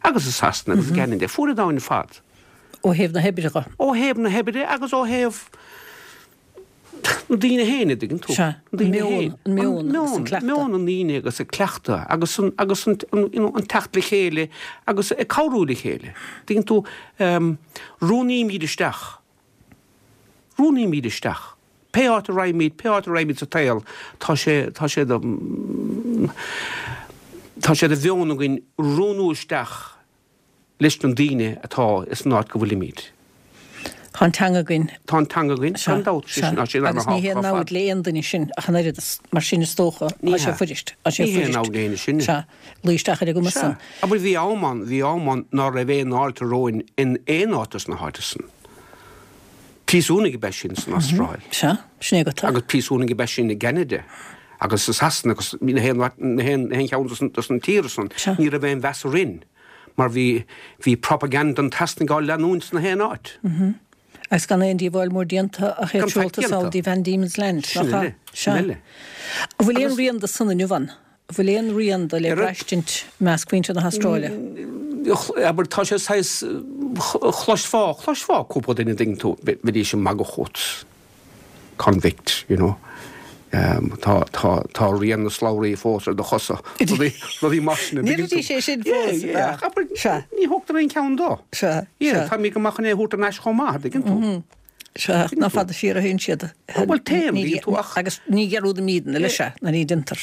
agus i Sasana agus i gCeanada, fuaid an domhain ar fad. Ó thaobh na hoibre dhe. Ó thaobh na hoibre agus ó thaobh na daoine féin, a dtuigeann tú. Sea, an meon, an meon agus an cleachtadh. Meon na ndaoine agus an cleachtadh agus an, agus an, you know, an teacht le chéile agus ag cabhrú le chéile. Tuigeann tú, rúnaímid isteach, rúnaímid isteach. Pé áit a raghaimid, pé áit a raghaimid sa tsaol, tá sé, tá sé de, tá sé de mheon againn rúnú isteach leis na daoine atá ins an áit go bhfuilimid. Tá an teanga againn. Tá an teanga againn, gan dabht. Sea, sea. Agus ní haon namhaid le aon duine sin ach an oiread, mar sin is dócha, tá sé fuirist. Tá sé fuirist. Ní haon namhaid le éinne sin. Sea. Luí isteach ar an gcuma san. Sea. Abair bhí am ann, bhí am ann ná raibh aon fháilte romhainn in aon áit dos na háite san. Príosúnaigh ab ea sinn san Astráil. Sea, sin é agat. Agus príosúnaigh ab ea sinn i gCeanada agus i Sasana agus na haon cheann dos na tíortha san. Ní raibh aon mheas orainn mar bhí bhí propaganda an tSasanaigh á leanúint sna haon áit. Agus gan aon díobháil mór déanta ach iad seolta sall dtí Van Diemen's Land, nach ea? Sin eile. An bhfuil aon rian de san inniu ann? An bhfuil aon rian de le braistint i measc mhuintir na hAstráile? Abair, tá sé saghas, chloisfeá, chloisfeá cúpla duine, an dtuigeann tú, bheidís ag magadh fút, convict, you know, tá, tá, tá rian na slabhraí fós ar do chosa, rudaí, rudaí mar sin, an dtuigeann tú? Ndéarfaidís é sin fós, Yeah, yeah, ach abair, ní thógtar aon cheann dó. Sea, Yeah, sea. táimid go maith chun é a thabhairt thar n-ais chomh maith, an dtuigeann tú? Sea, ach nach fada siar a théann siad. Bhuel, téann, an dtuigeann tú, ach. Agus ní dhearúdaimídne leis é, ná ní déantar.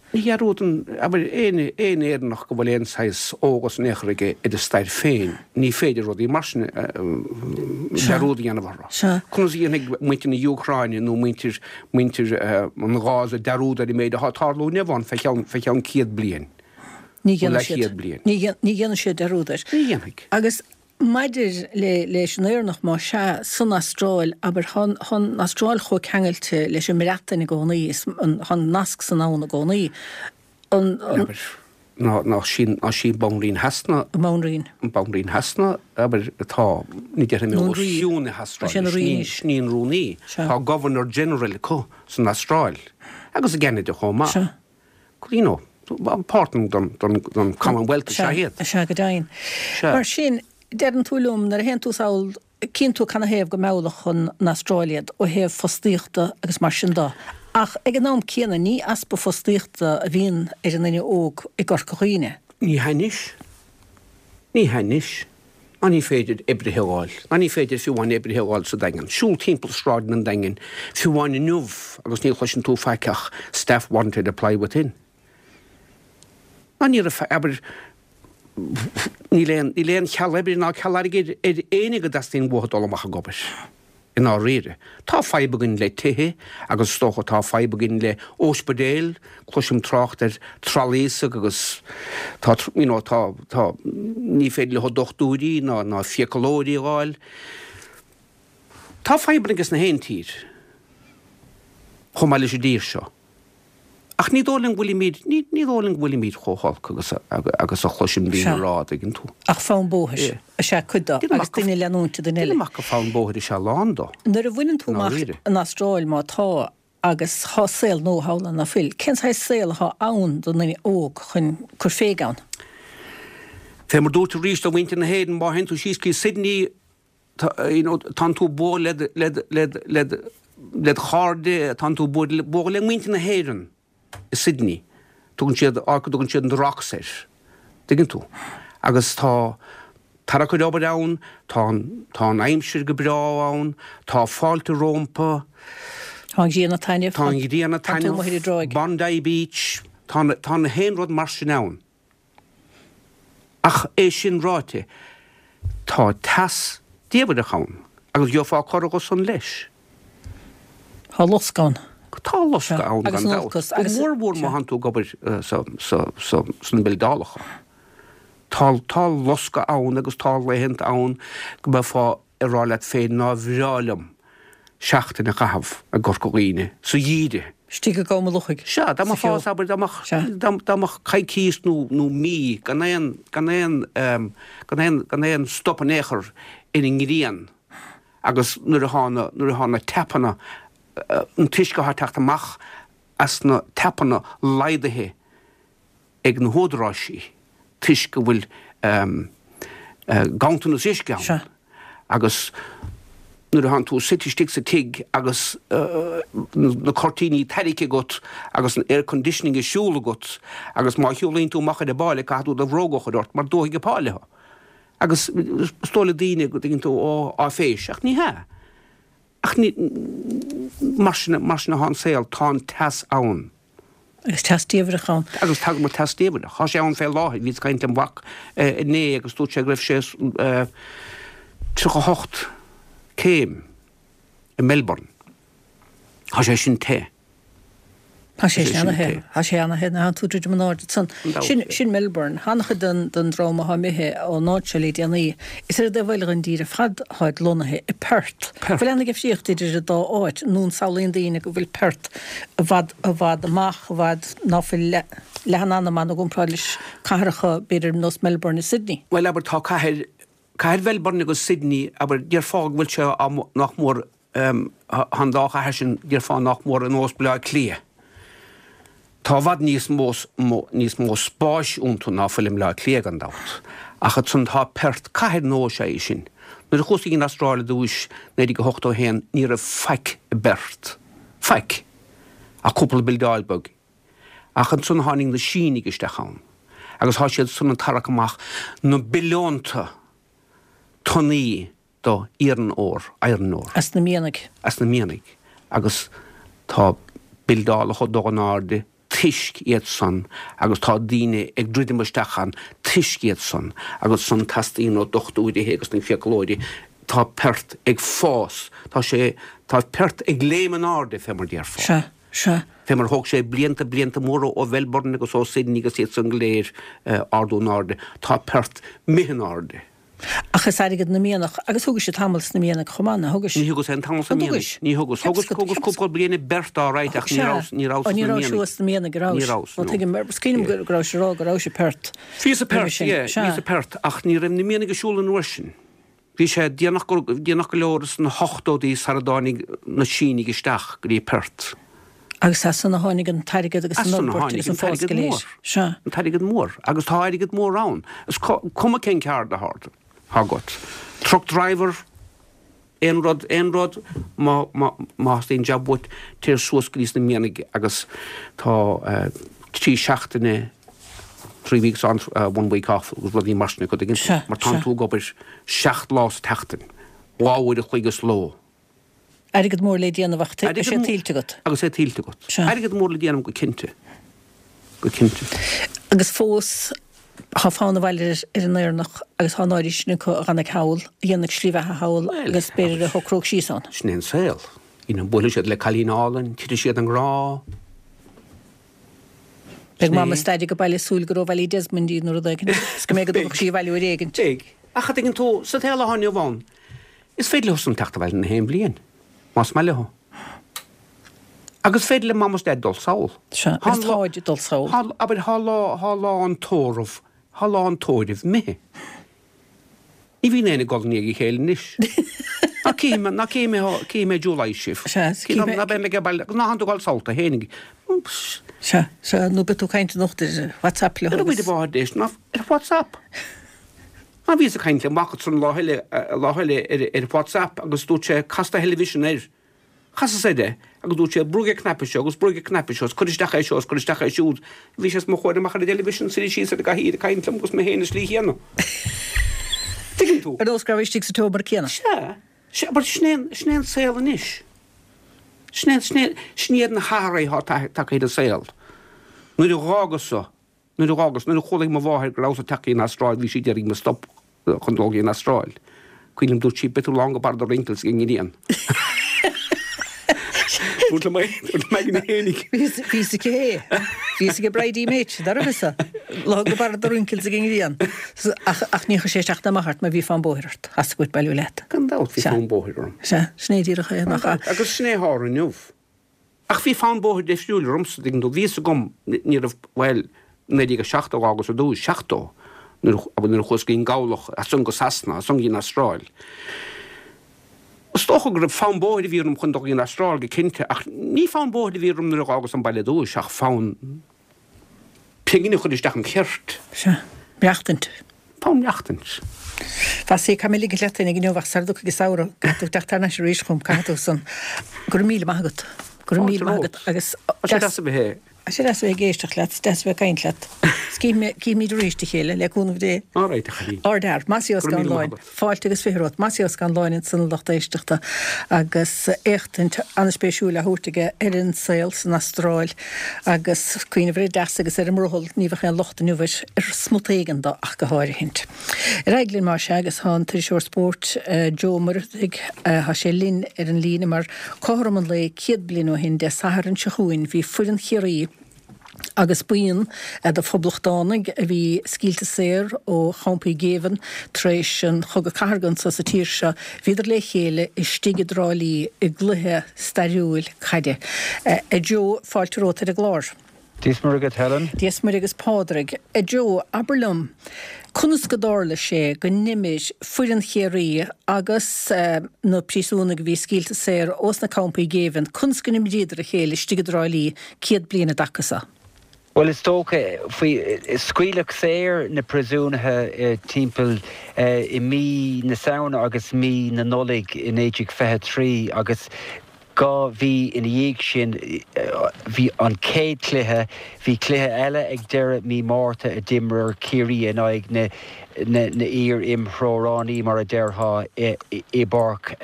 Ní dhearúdann, abair, aon aon Éireannach go bhfuil aon saghas eolas in aon chor aige ar a stair féin, ní féidir rudaí mar sin dearúd a dhéanamh orthu. Conas a dhéanfaidh muintir na hÚcráine nó muintir muintir an Ghaza dearúd ar an méid atá ag tarlú inniu ann fé cheann fé cheann 100 bliain? Ní dhéanfaidh siad. Leathchéad bliain. Ní dhéanfaidh siad dearúd air. Ní dhéanfaidh. Agus Maidir le leis an Éireannach, más ea, san Astráil, abair, tá an Astráil chomh ceangailte leis an mBreatain i gcónaí, is tá an nasc san ann i gcónaí. An. Abair, ná, ná sí, ná sí Banríon Shasana. An Bhanríon. An Banríon Shasana, abair, atá, ní déarfaidh mé os cionn na hAstráile, sin í an rúnaí. Tá Governor General acu san Astráil, agus i gCeanada chomh maith. Sea. You know, páirt den Commonwealth is ea iad. Sea, go deimhin. Mar sin, deireann tú liom, nuair a théann tú sall, cíonn tú canathaobh go meallfadh an Astráil iad ó thaobh fostaíochta agus mar sin de. Ach ag an am céanna, ní easpa fostaíochta a bhíonn ar an nduine óg i gCorca Dhuibhne. Ní hea anois. Ní hea anois. Ná ní féidir oibrithe a fháil, ná ní féidir fiú amháin oibrithe a fháil sa Daingean. Siúl timpeall sráideanna an Daingin, fiú amháin inniu, agus ní chloiseann tú faic ach staff wanted, apply within. Ná ní raibh, abair, níl aon, níl aon cheal oibre ná ceal airgid ar éinne go dteastaíonn uathu dul amach ag obair. I ndáiríre. Tá fadhb againn le tithe agus is dócha tá fadhb againn le óispidéil, cloisim trácht ar trolleys agus tá, you know, tá, tá, ní féidir leo dochtúirí ná, ná fiacalóirí a fháil. Tá fadhbanna aige sna haon tír, chomh maith leis an dtír seo. Ach ní dóigh liom go bhfuilimid, ní, ní dóigh liom go bhfuilimid chomh holc agus a, agus a chloisim daoine a rá, an dtuigeann tú. Ach fonn bóthair is ea cuid de, agus duine ag leanúint duine eile. Déanaim amach gur fonn bóthair is ea a lán de. Nuair a bhaineann tú amach an Astráil, má tá, agus thá saol nua thall ann, ná fuil? Cén saghas saol athá ann don nduine óg chun cur féig ann? Fé mar dúirt arís do mhuintir na hÉireann, má théann tú síos go Sydney, you know, tánn tú ag bualadh le, le, le, le do chairde, tánn tú ag bualadh le muintir na hÉireann i Sydney. Tugann siad, áit go dtugann siad an The Rocks air. Tuigeann tú? Agus tá tarrac ar obair ann, tá an, tá an aimsir go breá ann, tá fáilte rómpa. Tá an ghrian ag taitneamh. Tá an ghrian ag taitneamh. Tá tú amuigh ar an dtráigh. Bondi Beach, tá, tá na haon rud mar sin ann. Ach é sin ráite, tá teas diamhrach ann agus gheofá corradh dho san leis. Tá loscadh ann. Tá loscadh ann gan dabht. Go mór mhór má thánn tú ag obair sna bildeálacha. Tá loscadh ann agus tá laethanta ann go mbeifeá ag rá leat féin nár bhreá liom seachtain a chaitheamh i gCorca Dhuibhne sa gheimhreadh. Istigh i gCom an Lochaigh. Sea, dá mbeifeá, abair, dá mbeadh, dá mbeadh coicís nó, nó mí gan aon, gan aon, gan aon, gan aon stop in aon chor ar an ngrian agus nuair athá na, nuair athá na tapanna, an t-uisce athá ag teacht amach as na tapanna laghdaithe ag na húdaráisí toisc go bhfuil ganntanas uisce ann. Agus nuair a thánn tú suite istigh sa tigh agus na cuirtíní tarraingthe agat agus an air conditioning ag siúl agat agus má shiúlaíonn tú amach ar an bpáile caithfidh tú do bhróga a chur ort mar dófaidh an pháile thú. Agus is dóigh le daoine go dtuigeann tú, ó, áiféis, ach ní hea. Ach ní, mar sin, mar sin atá an saol, tá an teas ann. Agus teas diamhrach ann. Agus tagann an teas diamhrach. Tá sé ann fé láthair. Bhíos ag caint lem mhac inné agus dúirt sé go raibh sé 38 céim i Melbourne. Tá sé sin te. Tá sé sin ana-the. Tá sé ana-the nuair atánn tú ag druidim in airde ansan. Sin, sin Melbourne. An-chuid den, den dream atá imithe ón áit seo le déanaí, is ar an dtaobh eile den dtír ar fad atáid lonnaithe, i Perth. Perth. Bhfuil aon difríocht idir an dá áit, nó an samhlaíonn daoine go bhfuil Perth i bhfad, i bhfad amach, i bhfad ná fuil leath, leath an anam ann i gcomparáid leis cathracha, b'fhéidir, nós Melbourne is Sydney? Bhuel, abair, tá cathair, cathair Mhelbourne agus Sydney, abair, déarfá go bhfuil sé á, nach mór, Tá an dá chathair sin, déarfá, nach mór ar nós Baile Átha Cliath. Tá i bhfad níos mó níos mó spáis iontu ná fuil i mBaile Átha Cliath, gan dabht. Ach ansan tá Perth, cathair nua is ea í sin. Nuair a chuas go dtí an Astráil ar dtúis, 1981, ní raibh faic i bPerth. Faic. Ach cúpla bildeáil beag. Ach ansan tháinig na Sínigh isteach ann. Agus tá siad san ag tarrac amach na billiúnta tonnaí do iron ore, iron ore. As na mianaigh. As na mianaigh. Agus tá bildeálacha ag dul in airde toisc iad san agus tá daoine ag druidim isteach ann toisc iad san agus san teastaíonn ó dochtúirithe agus na fiaclóirí. Tá Perth ag fás. Tá sé, tá Perth ag léim in airde fé mar déarfá. Sea, sea. Fé mar thóg sé blianta, blianta móra ó Mhelbourne agus ó Sydney agus iad san go léir ardú in airde. Tá Perth imithe in airde. Ach is airgead na mianach, agus thugais tamall sna mianaigh chomh maith, ná thugais? Ní thugas aon tamall sna mianaigh. Ní thugas. Thugas, thugas cúpla bliain i bPerth alright ach ní rabhas, ní rabhas sna mianaigh. Ní rabhais thuas sna mianaigh, a rabhais? Ní rabhas, no. Tuigim, is cuimhin liom go rabhais ag rá go rabhais i Perth. Bhíos i Perth, yeah, bhíos i Perth ach ní raibh na mianaigh ag siúl an uair sin. Bhí sé déanach go, déanach go leor sna hochtóidí sara dtáinig na Sínigh isteach go dtí Perth. Agus as san a tháinig an t-airgead agus an fhorbairt agus an fás go léir. Sea. An t-airgead mór. Agus tá airgead mór ann. Is cuma cén ceard atá agat. Truck driver, aon rud, aon rud, má, má, má theastaíonn jab uait, téir suas go dtí sna mianaigh agus tá trí seachtaine, three weeks on, one week off agus rudaí mar sin acu, tuigeann tú? Mar tánn tú ag obair seacht lá sa tseachtain, dhá uair a chloig sa ló. Airgead mór le déanamh ach tá sé tuillte agat. Agus é tuillte agat. Sea. Airgead mór le déanamh go cinnte. Go cinnte. Agus fós tá fonn abhaile ar an Éireannach agus tá an áirithe sin acu a dh'fhanfaidh thall, a dhéanfaidh slí bheatha thall agus b'fhéidir a shocródh síos ann. Sin é an saol. You know, buailfidh siad le cailín álainn, titfidh siad i ngrá. Beidh Mam is Daid ag baile ag súil gur ó Ballydesmond í nó rud éigin is go mbeidh go dtabharfadh sí abhaile uair éigin. Beidh. Ach a dtuigeann tú, sa tsaol atá inniu ann, Is féidir leo san teacht abhaile na haon bhliain, más maith leo. Agus is féidir le Mam is Daid dul sall. Sea, agus táid ag dul sall. Tá, abair, tá lá, tá lá an tórraimh, tá lá an tórraimh imithe. Ní bhíonn éinne ag gol i ndiaidh a chéile anois. Ná cífidh mé, ná cífidh mé, cífidh mé July sibh. Sea, cífidh mé. Ná beidh mé ag baile, ná thánn tú ag dul sall tú fhéinig. Sea, sea, nó beidh tú ag caint anocht ar WhatsApp leo agus. Ar a bhfuil ná ar WhatsApp. Ná bhíos ag caint le mac ansan lá eile, lá eile ar, ar WhatsApp agus dúirt sé, cas do theilifísean air. Chasas air é agus dúirt sé, brúigh an cnaipe seo agus brúigh an cnaipe seo is cuir isteach é seo is cuir isteach é siúd. Bhí sé os mo chomhair amach ar an dteilifísean suite síos ar an gcathaoir ag caint liom agus mé féin an slí chéanna. Tuigeann tú? Ar nós go raibh istigh sa tseomra céanna. Sea, sea, but sin é an, sin é an saol anois. Sin é, sin é, sin iad na hathruithe atá tagtha ar an saol. Nuair a dh'fhágas-sa Nuair a dh'fhágas, nuair a chualaigh mo mháthair go rabhas ag teacht go dtí an Astráil, bhí sí d'iarraidh mo stop chun dul go dtí an Astráil. Cuimhin liom, dúirt sí, beidh tú lán go barr do wrinkles ag an ngrian. Dúirt liom é, dúirt liom aigne fhéinig. Bhí fhios aici é. Bhí fhios ag Bridie Mate, dá raibh fhios a. Lán go barr do wrinkles ag an ngrian. Ach, ach ní chuir sé isteach ná amach ort mar bhí fonn bóthair ort. Theastaigh uait bailiú leat. Gan dabht bhí fonn bóthair orm. Sea, sin é díreach é, nach ea? Agus sin é a tharla inniu. Ach bhí fonn bóthair difriúil ormsa, tuigeann tú. Bhí fhios agam, ní raibh, bhuel, 1970 a dh'fhágas ar dtús, 70, nuair a, nuair a chuas go dtí an gCabhlach, as san go Sasana, as san go dtí an Astráil. Is dócha go raibh fonn bóthair a bhí orm chun dul go dtí an Astráil, go cinnte, ach ní fonn bóthair a bhí orm nuair a dh'fhágas an baile ar dtús, ach fonn pingin a chur isteach im cheirt. Sea, maireachtaint. Fonn maireachtaint. Mhasie, caithfidh mé ligint leat féinig inniu ach sara dtiocfaidh an samhradh, caithfidh tú teacht thar n-ais arís chugam, caithfidh tú san. Go raibh míle maith agat. Go raibh míle maith agat agus. Tá sé deas a bheith. Tá sé deas a bheith ag éisteacht leat, is deas a bheith ag caint leat. Is cífimid arís a chéile, le cúnamh Dé. All right, a chailín. Ardfhear. Mossie Ó Scanláin. Fáilte agus 20 romhat. Mossie Ó Scanláin ansan a lucht éisteachta agus éachtaint an-spéisiúil á thabhairt aige ar an saol san Astráil agus cuimhneamh ar an dteas agus ar an mbrothall, ní bheadh aon locht inniu air, ar smut éigin de ach go háirithint. Ar aghaidh linn más ea agus tá an t-iriseoir spóirt Joe Ó Muircheartaigh, tá sé linn ar an líne mar cothrom an lae 100 bliain ó shin Dé Sathairn seo chugainn bhí foireann Chiarraí agus buíon de phoblachtánaigh a bhí scaoilte saor ó champaí géibhinn tar éis an Chogadh Cathartha anso sa tír seo, bhíodar le chéile istigh i dTrá Lí i gcluiche stairiúil caide. A Joe, fáilte romhat ar an gclár. Dia is Muire dhuit Helen. Dia is Muire agus Pádraig. A Joe, abair liom, conas go dtarla sé go n-imir foireann Chiarraí agus na príosúnaigh a bhí scaoilte saor ós na campaí géibhinn, conas go n-imríodar a chéile istigh i dTrá Lí 100 bliain i dtaca so? Bhuel, is dócha, faoi, scaoileadh saor na príosúnaithe timpeall i mí na Samhna agus mí na Nollag i 1923 agus 2 mhí ina dhiaidh sin bhí an chéad chluiche, bhí cluiche eile ag deireadh mí Márta a d'imir Ciarraí in aghaidh na n-iar-imthreoránaí, mar a déarfá, i bPáirc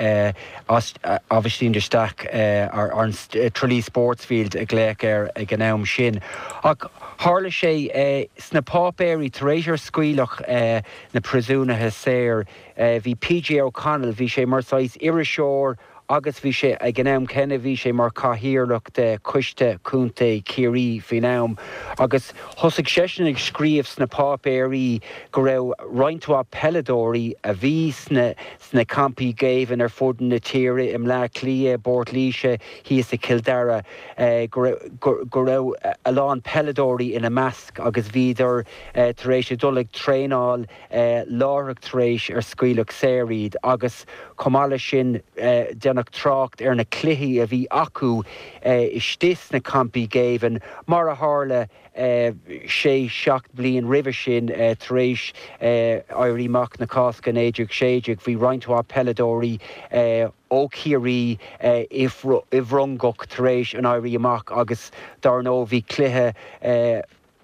Aibhistín de Staic, an Tralee Sportsfield a glaodh air ag an am sin. Ach tharla sé sna páipéirí tar éis ar scaoileadh na príosúnaithe saor, bhí PJ O'Connell, bhí sé mar saghas iriseoir, agus bhí sé, ag an am céanna, bhí sé mar chathaoirleach de Choiste Contae Chiarraí faoin am, agus thosaigh seisean ag scríobh sna páipéirí go raibh roinnt mhaith peileadóirí a bhí sna sna campaí géibhinn ar fud na tíre, i mBleá Cliath, i bPort Laoise, thíos i Cill Dara, go raibh go raibh a lán peileadóirí ina measc agus bhíodar tar éis a dul ag traenáil láithreach tar éis ar scaoileadh saor iad agus chomh maith leis sin déanadh trácht ar na cluichí a bhí acu istigh sna campaí géibhinn mar a tharla sé seacht bliain roimhe sin tar éis Éirí Amach na Cásca 1916 bhí roinnt mhaith peileadóirí ó Chiarraí i bhFrongoch tar éis an Éirí Amach agus dar ndóigh bhí cluiche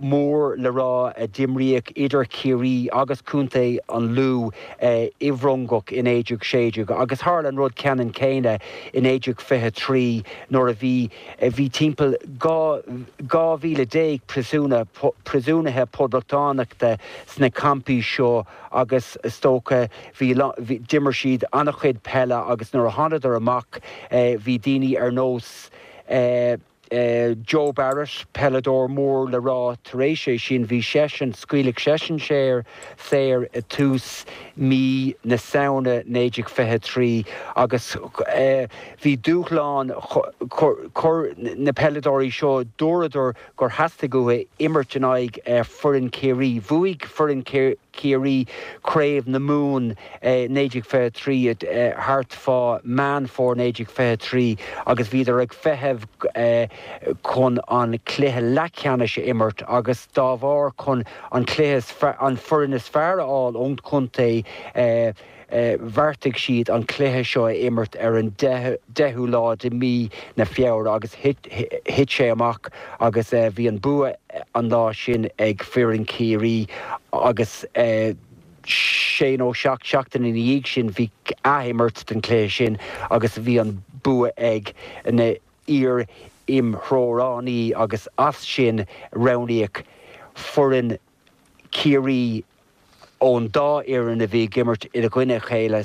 mór le rá a d'imríodh idir Ciarraí agus Contae an Lú i bhFrongoch i 1916 agus tharla an rud ceannann céanna i 1923 nuair a bhí bhí timpeall 12,000 príosúna príosúnaithe poblachtánachta sna campaí seo agus is dócha bhí d'imir siad an-chuid peile agus nuair a thánadar amach bhí daoine ar nós Joe Barrett, peileadóir mór le rá, tar éis é sin bhí seisean, scaoileadh seisean saor saor i tús mí na Samhna 1923 agus bhí dúshlán, chuir na peileadóirí seo, dúradar gur theastaigh uathu imirt in aghaidh foireann Chiarraí. Bhuaigh foireann Chiarraí Craobh na Mumhan 1923 thart fá Meán Fómhair 1923 agus bhíodar ag feitheamh chun an cluiche leathcheannais a imirt agus dá bharr chun an cluiche an foireann is fearr a fháil ón chontae bheartaigh siad an cluiche seo a imirt ar an 10ú lá de mí na Feabhra agus thit sé amach agus bhí an bua an lá sin ag foireann Chiarraí agus sé nó seacht seachtain ina dhiaidh sin bhí athimirt den chluiche sin agus bhí an bua ag na iar-imthreoránaí agus as sin roghnaíodh foireann Chiarraí ón dá fhoireann a bhí ag imirt i gcoinne a chéile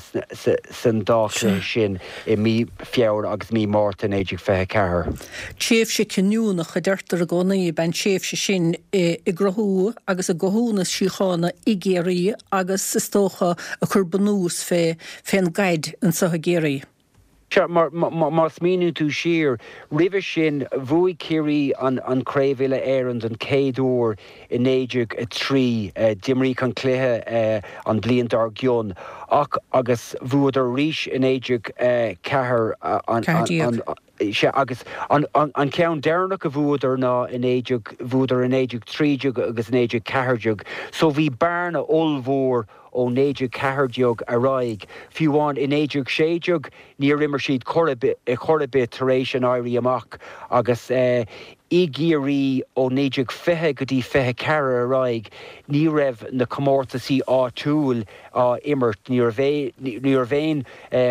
san dá chluiche sin i mí Feabhra agus mí Márta 1924. Tréimhse cinniúnach, a deirtear i gcónaí, ab ea an tréimhse sin i gcruthú agus i gcothú na síochána i gCiarraí agus, is dócha, ag cur bunús fé fén gcaid anso i gCiarraí. Sea, mar má smaoiníonn tú siar, roimhe sin, bhuaigh Ciarraí an Chraobh Uile-Éireann don chéad uair i 1903. D'imríodh an cluiche an bhliain dár gcionn ach agus bhuadar arís i 1904 an, sea, agus an ceann deireanach a bhuadar ná i 19, bhuadar i 1913 agus 1914. So bhí bearna ollmhór. ó 1914 ar aghaidh. Fiú amháin i 1916 níor imir siad chor ar bith tar éis an Éirí Amach agus i gCiarraí ó 1920 go dtí 24 ar aghaidh ní raibh na comórtasaí áitiúil á imirt, ní raibh aon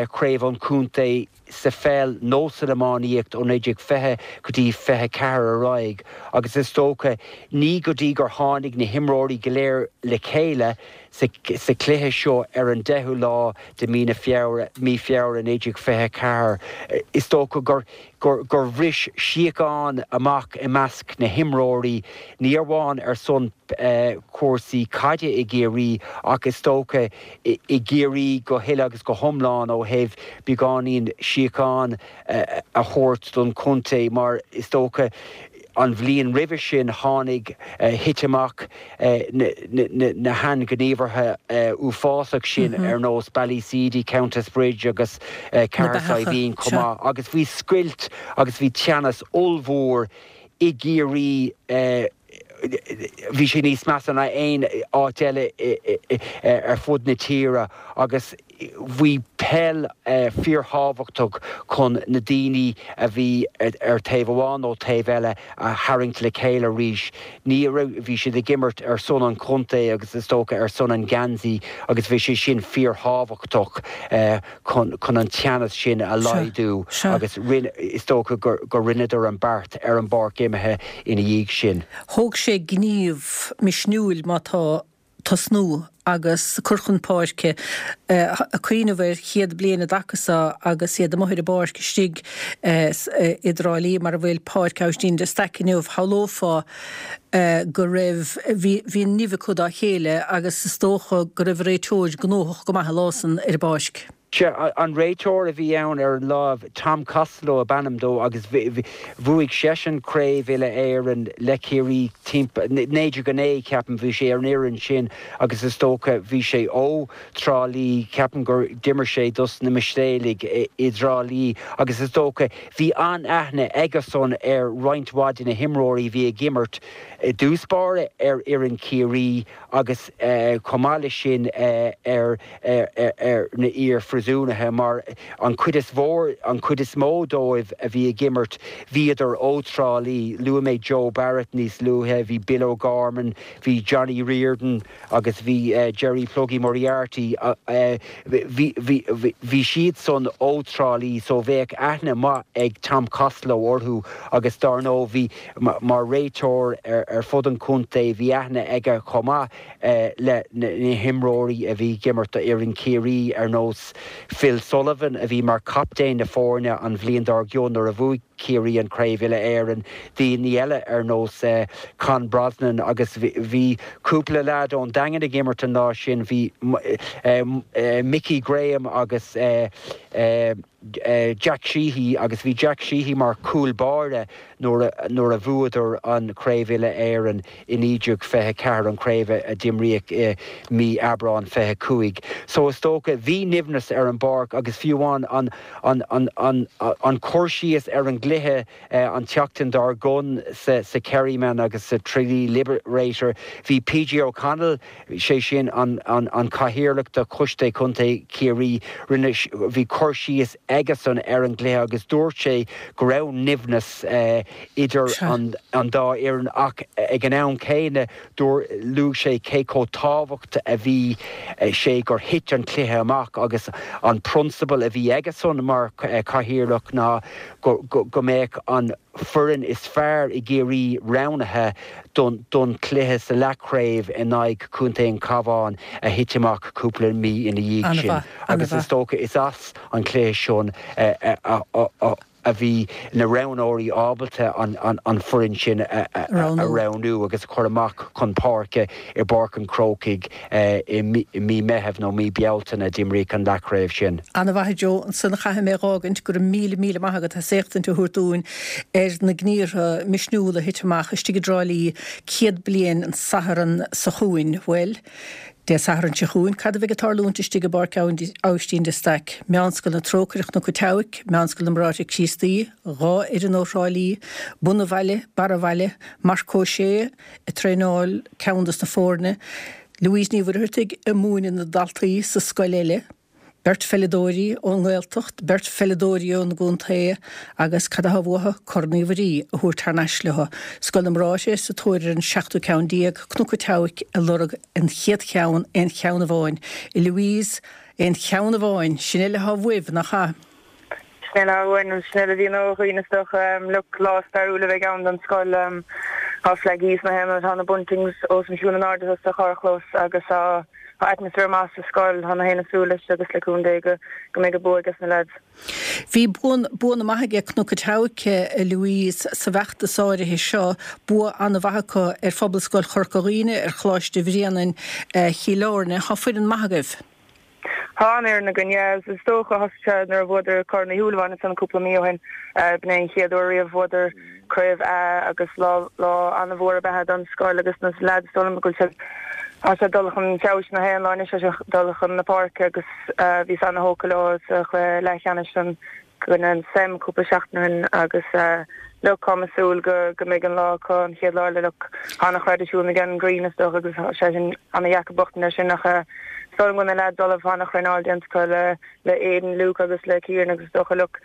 chraobh an chontae sa pheil nó san iománaíocht ó 1920 go dtí 24 ar aghaidh agus is dócha ní go dtí gur tháinig na himreoirí go léir le chéile sa chluiche seo ar an 10ú lá de mí na Feabhra, mí Feabhra 1924, is dócha gur gur bhris síocháin amach i measc na himreoirí, ní amháin ar son cúrsaí caide i gCiarraí ach is dócha i gCiarraí go huile agus go hiomlán ó thaobh beagáinín síocháin a thabhairt don chontae mar is dócha an bhliain roimhe sin tháinig, thit amach na hainghníomhartha uafásach sin ar nós Ballyseedy, Countess Bridge agus Cathair Saidhbhín chomh maith agus bhí scoilt agus bhí teannas ollmhór i gCiarraí. Bhí sé níos measa ná aon áit eile ar fud na tíre agus bhí peil fíorthábhachtach chun na daoine a bhí ar taobh amháin nó taobh eile a tharraingt le chéile arís. Ní raibh, bhí siad ag imirt ar son an chontae agus is dócha ar son an gheansaí agus bhí sé sin fíorthábhachtach. chun chun an teannas sin a laghdú agus rinne, is dócha gur gur rinneadar an beart ar an bpáirc imeartha ina dhiaidh sin. Thóg sé gníomh misniúil má tá tosnú agus cur chun páirce, ag cuimhneamh ar chéad bliain i dtaca so agus iad amuigh ar an bpáirc istigh i dTrá Lí mar a bhfuil Páirc Aibhistín de Staic inniu, shamhlófá go raibh, bhí, bhí nimh acu dá chéile agus is dócha go raibh an réiteoir gnóthach go maith an lá san ar an bpáirc. Sea, an réiteoir a bhí ann ar an lá, Tom Costello ab ainm dó agus bhuaigh seisean Craobh Uile-Éireann le Ciarraí timpeall, 1909 ceapaim, bhí sé ar an fhoireann sin agus is dócha bhí sé ó Trá Lí, ceapaim gur d'imir sé dos na Mistéalaigh i dTrá Lí agus is dócha Bhí an-aithne aigesan ar roinnt mhaith de na himreoirí a bhí ag imirt i dtús báire ar fhoireann Chiarraí agus chomh maith leis sin ar na iar-phríosúnaithe mar an chuid is mhór, an chuid is mó dóibh a bhí ag imirt bhíodar ó Trá Lí. Luaigh mé Joe Barrett níos luaithe, bhí Bill O'Gorman, bhí Johnny Riordan, agus bhí Jerry Pluggy Moriarty, bhí siad san ó Trá Lí so bheadh aithne maith ag Tom Costello orthu agus dár ndóigh bhí, mar réiteoir ar fud an chontae, bhí aithne aige chomh maith le na himreoirí a bhí ag imirt do fhoireann Chiarraí ar nós Phil Sullivan a bhí mar chaptaen na foirne an bhliain dár gcionn nuair a bhuaigh Ciarraí an Chraobh Uile-Éireann, daoine eile ar nós Con Brosnan agus bhí cúpla leaid ón Daingean ag imirt an lá sin, bhí Mickey Graham agus Jack Sheehy agus bhí Jack Sheehy mar chúl báire nuair a bhuadar an Chraobh Uile-Éireann i 1924, an chraobh a d'imríodh i mí Aibreán 25. So is dócha, bhí nimhneas ar an bpáirc agus fiú amháin an an an an cur síos ar an gcluiche an tseachtain dár gcionn sa sa Kerryman agus sa Tralee Liberator, bhí PJ O'Connell, sé sin an an an cathaoirleach de Choiste Contae Chiarraí, rinne, bhí cur síos aigesan ar an gcluiche agus dúirt sé go raibh nimhneas idir an an dá fhoireann ach ag an am céanna dúirt, luaigh sé cé chomh tábhacht a bhí sé gur thit an cluiche amach agus an prionsabal a bhí aigesan mar chathaoirleach ná go go mbeadh an foireann is fearr i gCiarraí roghnaithe don don chluiche sa leathchraobh in aghaidh Chontae an Chabháin a thit amach cúpla mí ina dhiaidh sin agus is dócha is as an chluiche sin a a bhí na roghnóirí ábalta an foireann sin a roghnú agus a chur amach chun páirce i bPáirc an Chrócaigh i mí Meithimh nó mí Bealtaine a d'imríodh an leathchraobh sin. Ana-mhaith a Joe, ansan chaithfidh mé dh'fhágaint, go raibh míle míle maith agat as éachtaint a thabhairt dúinn ar na gníortha misniúla a thit amach istigh i dTrá Lí 100 bliain an Satharn so chugainn. Bhuel, Dé Sathairn seo chugainn, cad a bheidh ag tarlúint istigh i bPáirc Aibhistín de Staic? Meánscoil na Trócaire Chnoc an tSeabhaic, Meánscoil na mBráithre Críostaí, 2 fhoireann ó Thrá Lí, Bun an Bhaile, Barr an Bhaile, Marc Ó Sé ag traenáil ceann dos na foirne. Louise Ní Mhuircheartaigh ag múineadh na daltaí sa scoil eile, beirt pheileadóirí ón nGaeltacht, beirt pheileadóirí ón gcontae agus cad atá uathu? Corn Uí Mhuirí a thabhairt thar n-ais leo. Scoil na mBráithre sa tóir ar an seachtú ceann Cnoc an tSeabhaic ag lorg an chéad cheann, aon cheann amháin. A Louise, aon cheann amháin, sin uile atá uaibh, nach ea? Sin uile atá uainn, sin uile a bhíonn ó dhaoine is dócha. Look, lá stairiúil a bheidh ann don scoil. Tá flaigí sna haon áit, tá na buntings os a chionn in airde sa charrchlós agus tá atmaisféar maith sa scoil. Tá na haoinne ag súil leis agus le cúnamh Dé go mbeidh an bua ages na leaids. Bhí buanna maithe aige Cnoc an tSeabhaic, a Louise, sa bhfeachtas áirithe seo, bua an-mhaith acu ar Phobalscoil Chorca Dhuibhne, ar Choláiste Bhréanainn Chill Airne. Tá foireann maith agaibh. Tá an-fhoireann againn, yeah. Is dócha, thosaigh sé nuair a bhuadar Corn Uí Shúilleabháin ansan cúpla mí ó shin. B'in é an chéad uair riamh bhuadar Craobh A agus lá lá an-mhór ab ea é don scoil agus na leaids is dóigh liom go bhfuil siad tá siad dul chun feabhais na haon lá anois, tá siad dul chun na páirce agus bhíos ana-thógtha leo sa chluiche leathcheannais san. gcoinne an SEM cúpla seachtain ó shin agus look táim ag súil go go mbeidh an lá acu an chéad lá eile look tá ana-thraidisiún ag an Green is dócha agus tá sé sin ana-dheacair buachtaint air sin ach is dóigh liom go bhfuil na leaids ullamh tá ana-thraenáil déanta acu le le Aidan, Luke agus le Kieran agus is dócha look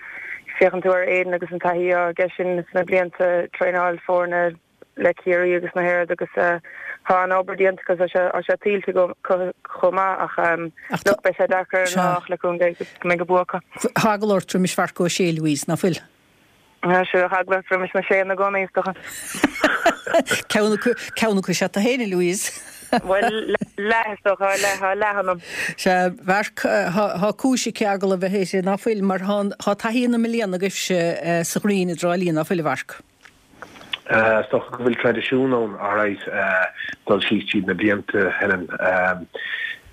féachann tú ar Aidan agus an taithí atá aige sin sna blianta traenáil foirne le Ciarraí agus na hÉireann agus tá an-obair déanta acu tá sé tá sé tuillte acu chomh maith ach look beidh sé deacair ar an lá ach le cúnamh Dé go mbeidh an bua acu. Tá eagla ort roimis Mharc Ó Sé, Louise, ná fuil? Tá sé eagla ort roimis na Séanna i gcónaí is dócha. Ceann acu ceann acu is ea tú féin, a Louise. Bhuel leath is dócha, leath tá leath ionam. Sea, Mharc, tá cúis aici eagla a bheith uirthi, ná fuil, mar tá taithí na mbliana agaibhse sa Ghreen i dTrá Lí, ná fuil, a Mharc? Is dócha go bhfuil traidisiún ann, alright, dul síos tríd na blianta, Helen,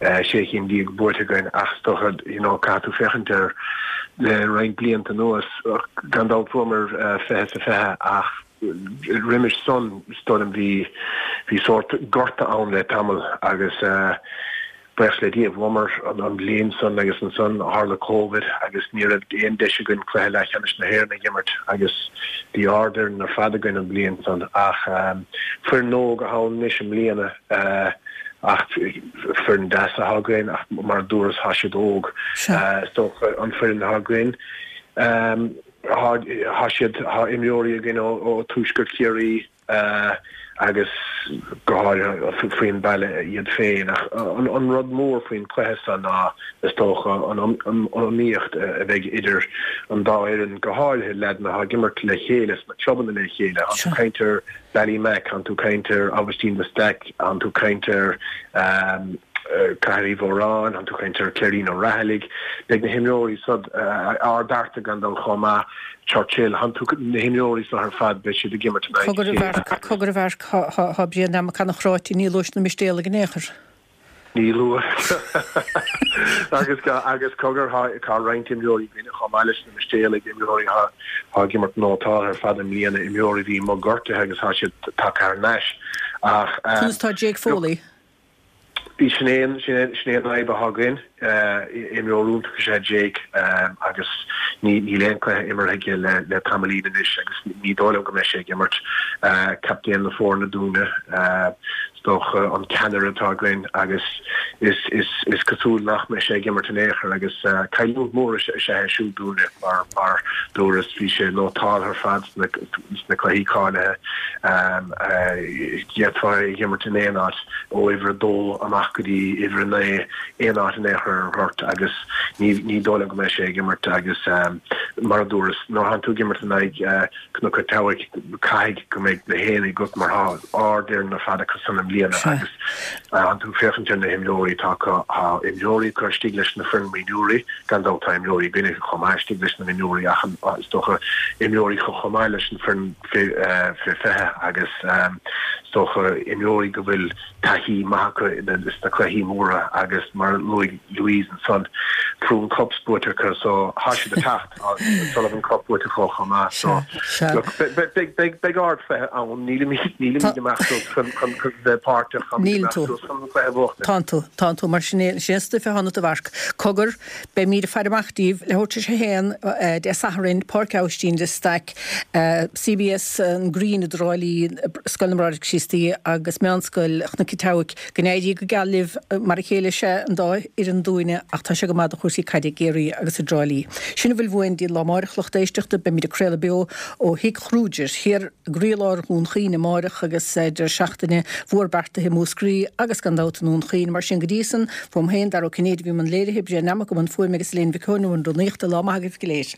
16 cinn buaite againn ach is dócha, you know, caithfidh tú féachaint ar le roinnt blianta anuas, gan dabht bhuamar 20 sa 20 ach roimis san, is dóigh liom, bhí, bhí sórt gorta ann le tamall agus, Buíochas le Dia, bhuamar an bhliain san agus ansan tharla Covid agus ní raibh aon deis againn cluiche leathcheannais na hÉireann a dh'imirt agus bhí ardfhoireann ar fad againn an bhliain san ach foireann óg atá ann anois i mbliana ach foireann deas atá againn ach mar a dúras tá siad óg. Is dócha an foireann atá againn tá siad tá imreoirí againn ó Tuaisceart Chiarraí, agus go háirithe faoin bhaile iad féin. Ach an rud mór faoin chluiche seo ná, is dócha, an iomaíocht a bheidh idir an dá fhoireann, go háirithe leaideanna atá ag imirt le chéile sna clubanna le chéile. Tánn tú ag caint ar Ballymac, tánn tú ag caint ar Aibhistín de Staic, tánn tú ag caint ar Cathair Uí Mhóráin, tánn tú ag caint ar Cléirín Ó Raghallaigh. Beidh na himreoirí seo, Ard Fhearta gan dabht chomh maith. Churchill, tánn tú, na himreoirí seo ar fad, beidh siad ag imirt in aghaidh a Cogar a chéile. Mharc, cogar a Mharc, thá Brian Mac Anachráite, ní luais na Mistéalaigh in aon chor. Ní luas. Agus, agus cogar, tá roinnt imreoirí againne chomh maith leis na Mistéalaigh, imreoirí atá ag imirt nótáltha ar fad i mbliana, imreoirí a bhí amuigh gortaithe agus tá siad tagtha thar n-ais. Ach, Conas tá Jake look, Foley? Sin é an fhadhb atá againn. Imreoir iontach is ea Jake agus níl aon chluiche imeartha aige le tamaillín anois agus ní dóigh liom go mbeidh sé ag imirt. Captaen na foirne dúinne, is dócha, an ceannaire atá againn agus is cosúil nach mbeidh sé ag imirt in aon chor agus cailliúint mhór is ea é siúd dúinne mar mar dúras bhí sé nótáltha ar fad sna cluichí cáilithe. D'fhéadfá é a dh'imirt in aon áit. ó uimhir a dó amach go dtí uimhir a naoi, aon áit in aon chor ar an ghort agus ní ní dóigh liom go mbeidh sé ag imirt agus mar a dúras, nuair a thánn tú ag imirt in aghaidh Cnoc an tSeabhaic, caithfidh go mbeidh na haonaigh agat mar tá ardfhoireann ar fad acu san i mbliana agus thánn tú ag féachaint ar na himreoirí atá acu, tá imreoirí acu istigh leis na foireann mionúirí, gan dabht tá imreoirí againne chomh maith istigh leis na mionúirí ach is dócha imreoirí acu chomh maith leis an foireann fé 20 agus is dócha imreoirí go bhfuil taithí maith acu sna cluichí móra agus mar a luaigh Louise ansan. Frewen Cups buaite acu so thá siad ag teacht, tá Sullivan Cup buaite acu chomh maith so look beidh beidh ardchluiche ann, nílimid nílimid amach suas chun chun bheith páirteach, táimid amach suas chun an cluiche a bhuachtaint. Tánn tú, tánn tú, mar sin é sin é an stuif atá ionat a Mharc. Cogar, beimid ag faire amach díbh, leathuair tar éis a haon Dé Sathairn, Páirc Aibhistín de Staic, CBS an Green i dTrá Lí, Scoil na mBráithre Críostaí agus Meánscoil Chnoc an tSeabhaic. Go n-éirí go geal libh. Mar a chéile is ea an dá fhoireann dúinne ach tá sé go maith do chúrsaí caide i gCiarraí agus i dTrá Lí. Sin a bhfuil uainn dtí an lá amáireach, lucht éisteachta. Beimid ag craoladh beo ó Thigh Kruger thiar i gcroílár Dhún Chaoin amáireach agus deireadh seachtaine mhór beartaithe i Múscraí agus gan dabht i nDún Chaoin. Mar sin go dtí san, fuaim féin, Dara Ó Cinnéide a bhí i mbun léirithe, Brian Nammock i mbun fuaime agus Elaine Mhic Eoin i mbun rúnaíochta. Lá maith agaibh go léir.